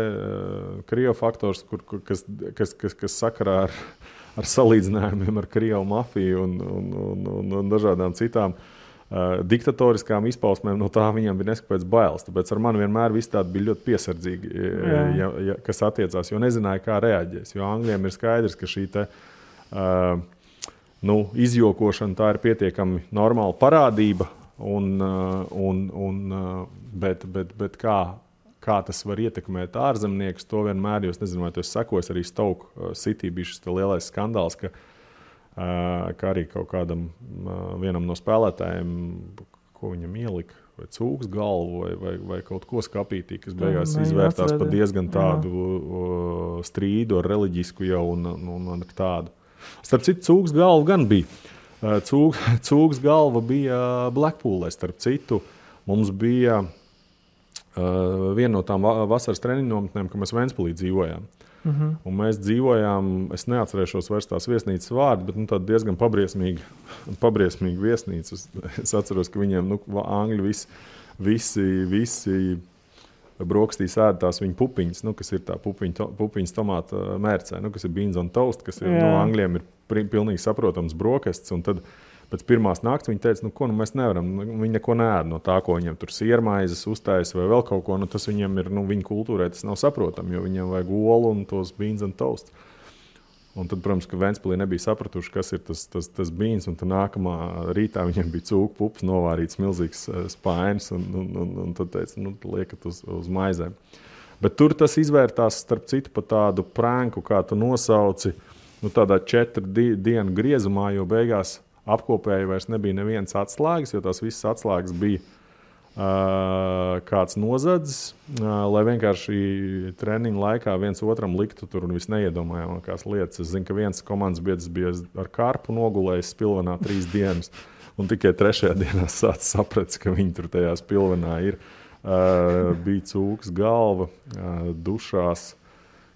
Krievu faktors, kas sakarā ar salīdzinājumiem ar Krievu mafiju un dažādām citām diktatoriskām izpausmēm, no tā viņam bija neskapēc bailes. Tāpēc ar mani vienmēr viss tādi bija ļoti piesardzīgi, kas attiecās, jo nezināja, kā reaģēs. Jo Angļiem ir skaidrs, ka šī te izjokošana tā ir pietiekami normāla parādība, bet kā tas var ietekmēt ārzemniekus, to vienmēr, jo es nezinu, vai tu esi sekojis, arī Stoke City bija šis lielais skandāls, ka arī kaut kādam vienam no spēlētājiem, ko viņam ielika, vai cūks galvu, vai kaut ko skapītī, kas beigās izvērtās par diezgan tādu strīdu ar reliģisku jau un ar tādu. Starp citu, cūks galvu gan bija. Cūks galva bija Blackpoolē, starp citu. Mums bija viena no tām vasaras treniņu nometnēm, ka mēs Ventspilī dzīvojām. Un mēs dzīvojām, es neatcerēšos vairs tās viesnīcas vārdu, bet tāda diezgan pabriesmīga viesnīca. Es atceros, ka viņiem angļi visi brokastīs ēd tās viņa pupiņas, kas ir tā pupiņas tomāta mērcē, kas ir beans on toast, kas ir, Angļiem ir pilnīgi saprotams brokastis, un tad pēc pirmās nakts viņi teica, mēs nevaram, viņi neko neēd no tā, ko viņiem tur siermaizes uztais vai vēl kaut ko, tas viņiem ir, viņa kultūrai tas nav saprotam, jo viņiem vajag olu un tos beans on toast. Un tad, protams, ka Ventspilī nebija sapratuši, kas ir tas beans, un tad nākamā rītā viņiem bija cūku pups, novārīts milzīgs spainis, un tad teica, liekat uz maizēm. Bet tur tas izvērtās, starp citu, pa tādu pranku, kā tu nosauci, tādā 4 dienu griezumā, jo beigās apkopēji vairs nebija nevienas atslēgas, jo tās visas atslēgas bija kāds nozadzis, lai vienkārši treniņu laikā viens otram liktu tur un viss neiedomājamākās lietas. Es zinu, ka viens komandas biedrs bija ar karpu nogulējis Spilvenā 3 dienas, un tikai 3. dienā sācis saprast, ka viņi tur tajā Spilvenā ir. Bija cūks galva, dušās,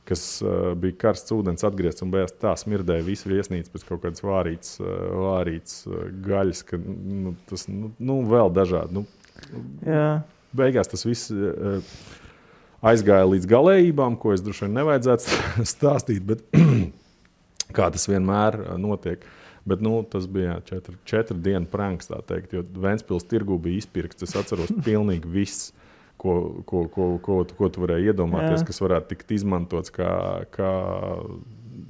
kas bija karsts ūdens atgriezts un beigās tā smirdēja visu viesnīcu pēc kaut kādas vārīts gaļas, ka tas vēl dažādi. Beigās tas viss aizgāja līdz galējībām, ko es droši vien nevajadzētu stāstīt, bet kā tas vienmēr notiek. Bet tas bija 4 dienu pranks, tā teikt, jo Ventspils tirgū bija izpirkts. Es atceros pilnīgi viss, ko tu varēji iedomāties, kas varētu tikt izmantots kā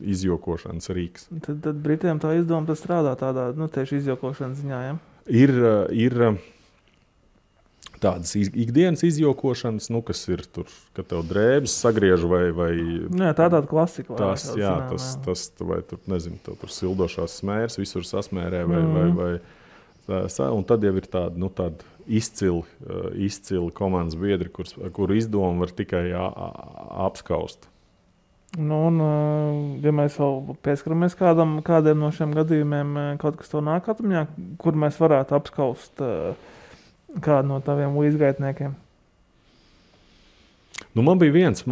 izjokošanas rīks. Tad Britiem tā izdoma strādā tādā, tieši izjokošanas ziņā, ja? Ir tādas ikdienas izjokošanas, kas ir tur, kad tev drēbes sagriež vai tāda klasika. Tas, vai tur, nezinu, tev tur sildošās smērs, visur sasmērē vai un tad jau ir tāda izcili komandas biedri, kuru izdomu var tikai apskaust. Ja mēs vēl pieskaramies kādiem no šiem gadījumiem, kaut kas to nāk atmiņā, kur mēs varētu apskaust kādu no taviem līdzgaitniekiem? Man bija viens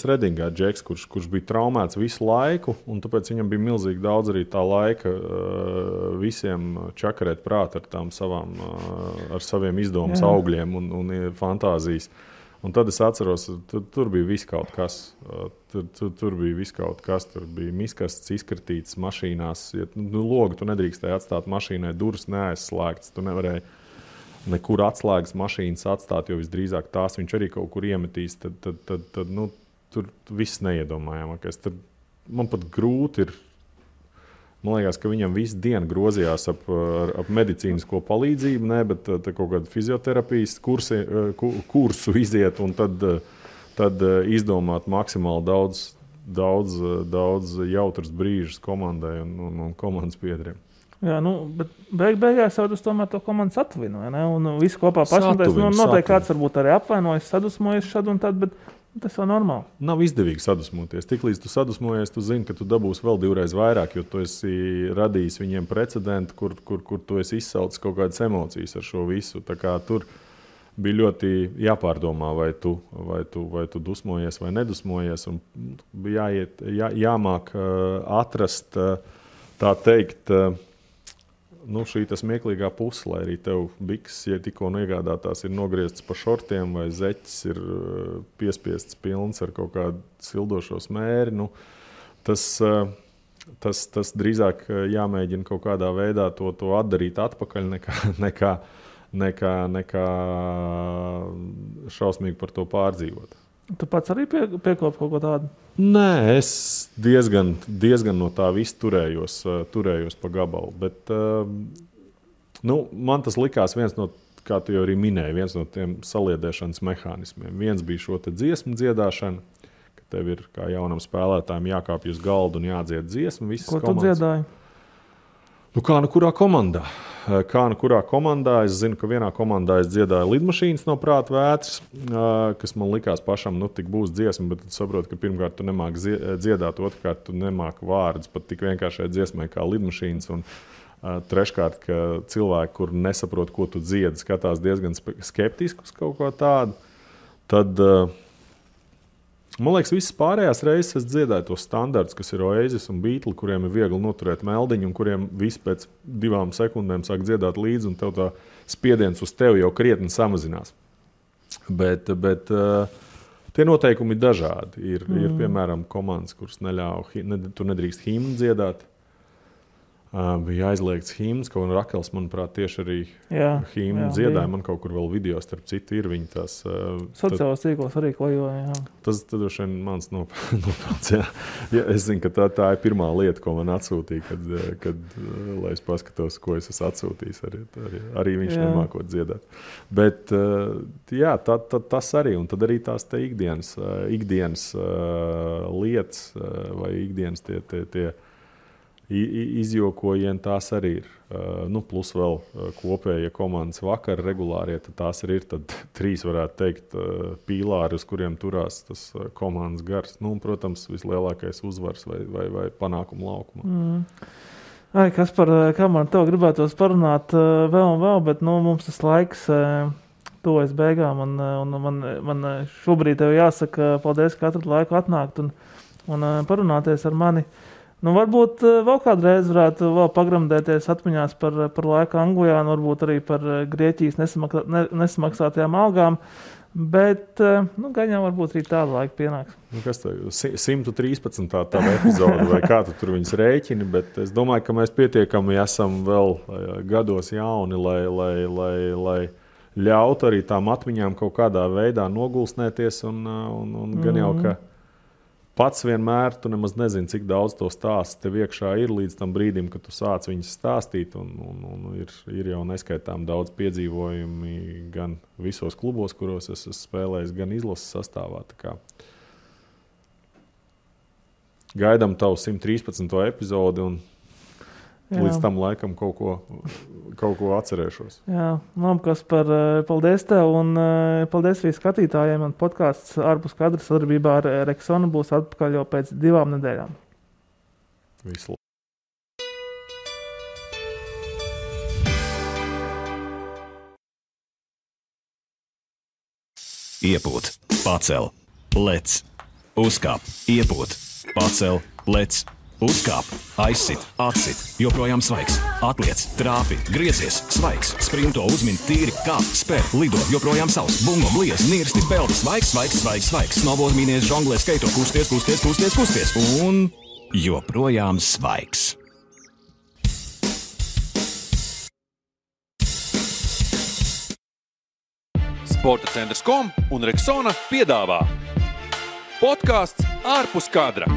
Redingā džeks, kurš bija traumēts visu laiku, un tāpēc viņam bija milzīgi daudz arī tā laika visiem čakarēt prāt ar saviem izdomas augļiem un fantāzijas. Un tad es atceros, tur bija viss kaut kas. Tur bija viss kaut kas. Tur bija miskasts izkratīts mašīnās. Logu tu nedrīkstēji atstāt mašīnai, durvis neaizslēgtas. Tu nevarēji nekur atslēgas mašīnas atstāt, jo visdrīzāk tās viņš arī kaut kur iemetīs. Tad tur viss neiedomājamākais. Man pat grūti ir. Man liekas, ka viņam visu dienu grozījās ap medicīnisko palīdzību, bet kaut kādu fizioterapijas kursu iziet un tad izdomāt maksimāli daudz jautras brīžus komandai un komandas biedriem. Jā, bet beigās jau tas tomēr to komandas atvinoja, ne? Un visi kopā pašmantēs. Noteikti kāds varbūt arī apvainojas, sadusmojas šad un tad, bet tas jau normāli. Nav izdevīgi sadusmoties. Tiklīdz tu sadusmojies, tu zini, ka tu dabūsi vēl 2 reizes vairāk, jo tu esi radījis viņiem precedentu, kur tu esi izsaucis kaut kādas emocijas ar šo visu. Tā kā tur bija ļoti jāpārdomā, vai tu dusmojies vai nedusmojies. Un bija jāmāk atrast, tā teikt, šī smieklīgā puse, lai arī tev bikses, ja tikko iegādātās, ir nogrieztas pa šortiem vai zeķis ir piespiests pilns ar kaut kādu sildošo smēri. Tas drīzāk jāmēģina kaut kādā veidā to atdarīt atpakaļ nekā šausmīgi par to pārdzīvot. Tu pats arī piekopi kaut ko tādu? Nē, es diezgan no tā visu turējos pa gabalu. Bet man tas likās viens no, kā tu jau arī minēji, viens no tiem saliedēšanas mehānismiem. Viens bija šo te dziesmu dziedāšana, ka tev ir kā jaunam spēlētājiem jākāpj uz galdu un jādzied dziesmu. Ko tu dziedāji? Kā kurā komandā? Kurā komandā? Es zinu, ka vienā komandā es dziedāju lidmašīnas no prāta vētras, kas man likās pašam, tik būs dziesma, bet tu saproti, ka pirmkārt tu nemāki dziedāt, otrkārt tu nemāki vārdus pat tik vienkāršai dziesmai kā lidmašīnas, un treškārt, ka cilvēki, kur nesaprot, ko tu dziedi, skatās diezgan skeptiski uz kaut ko tādu, tad man liekas, visas pārējās reizes es dziedāju tos standartus, kas ir Oasis un Beatles, kuriem ir viegli noturēt meldiņu, un kuriem visi pēc 2 sekundēm sāk dziedāt līdzi, un tev tā spiediens uz tevi jau krietni samazinās. Bet tie noteikumi ir dažādi. Ir piemēram, komandas, kuras tu nedrīkst himnu dziedāt. Bija aizliegts himns, kaut un Rakels, manuprāt, tieši arī himnu dziedāja. Man kaut kur vēl video, starp citu, ir viņi tās. Sociālās tīklos arī klejoja, jā. Tas droši vien mans nopelns, jā. Es zinu, ka tā ir pirmā lieta, ko man atsūtīja, kad lai es paskatos, ko es esmu atsūtījis. Arī viņš nemākot dziedāt. Bet, jā, tas arī, un tad arī tās te ikdienas lietas vai ikdienas tie izjokojieni, tās arī ir. Plus vēl kopējie komandas vakar regulārie, tad tās arī ir. Tad 3 varētu teikt pīlāri, uz kuriem turās tas komandas gars. Protams, vislielākais uzvars vai panākumu laukumā. Kā man tev gribētos parunāt vēl un vēl, bet mums tas laiks tuvojas beigām, un man šobrīd tev jāsaka paldies, ka atradu laiku atnākt un parunāties ar mani. Varbūt vēl kādreiz varētu vēl pagramdēties atmiņās par laiku Anglijā, un varbūt arī par Grieķijas nesamaksātajām algām, bet gan jau varbūt arī tādu laiku pienāks. Kas tev 113. tava epizode, vai kā tu tur viņas rēķini, bet es domāju, ka mēs pietiekami esam vēl gados jauni, lai ļautu arī tām atmiņām kaut kādā veidā nogulsnēties, un gan jau, ka pats vienmēr tu nemaz nezini, cik daudz to stāstu tev iekšā ir līdz tam brīdim, kad tu sāc viņas stāstīt. Un ir jau neskaitām daudz piedzīvojumi gan visos klubos, kuros es esmu spēlējis, gan izlases sastāvā. Gaidām tavu 113. epizodi. līdz tam laikam kaut ko atcerēšos. Jā, Kaspar, paldies tev un paldies arī skatītājiem. Un podcasts ārpus kadra sadarbībā ar Rexonu būs atpakaļ jau pēc 2 nedēļām. Visu. Iepūt, pacel, lec, uzkāp, iepūt, pacel, lec, uzkāp, aizsit, atsit, joprojām svaigs, atliec, trāpi, griezies, svaigs, sprinto, uzmin, tīri, kāp, spēr, lido, joprojām savs, bungo, bliez, nirsti, peldi, svaigs, snowboard, mīnies, žonglē, skaito, kusties, un joprojām svaigs. Sporta centrs.com un Rexona piedāvā podcasts ārpus kadra.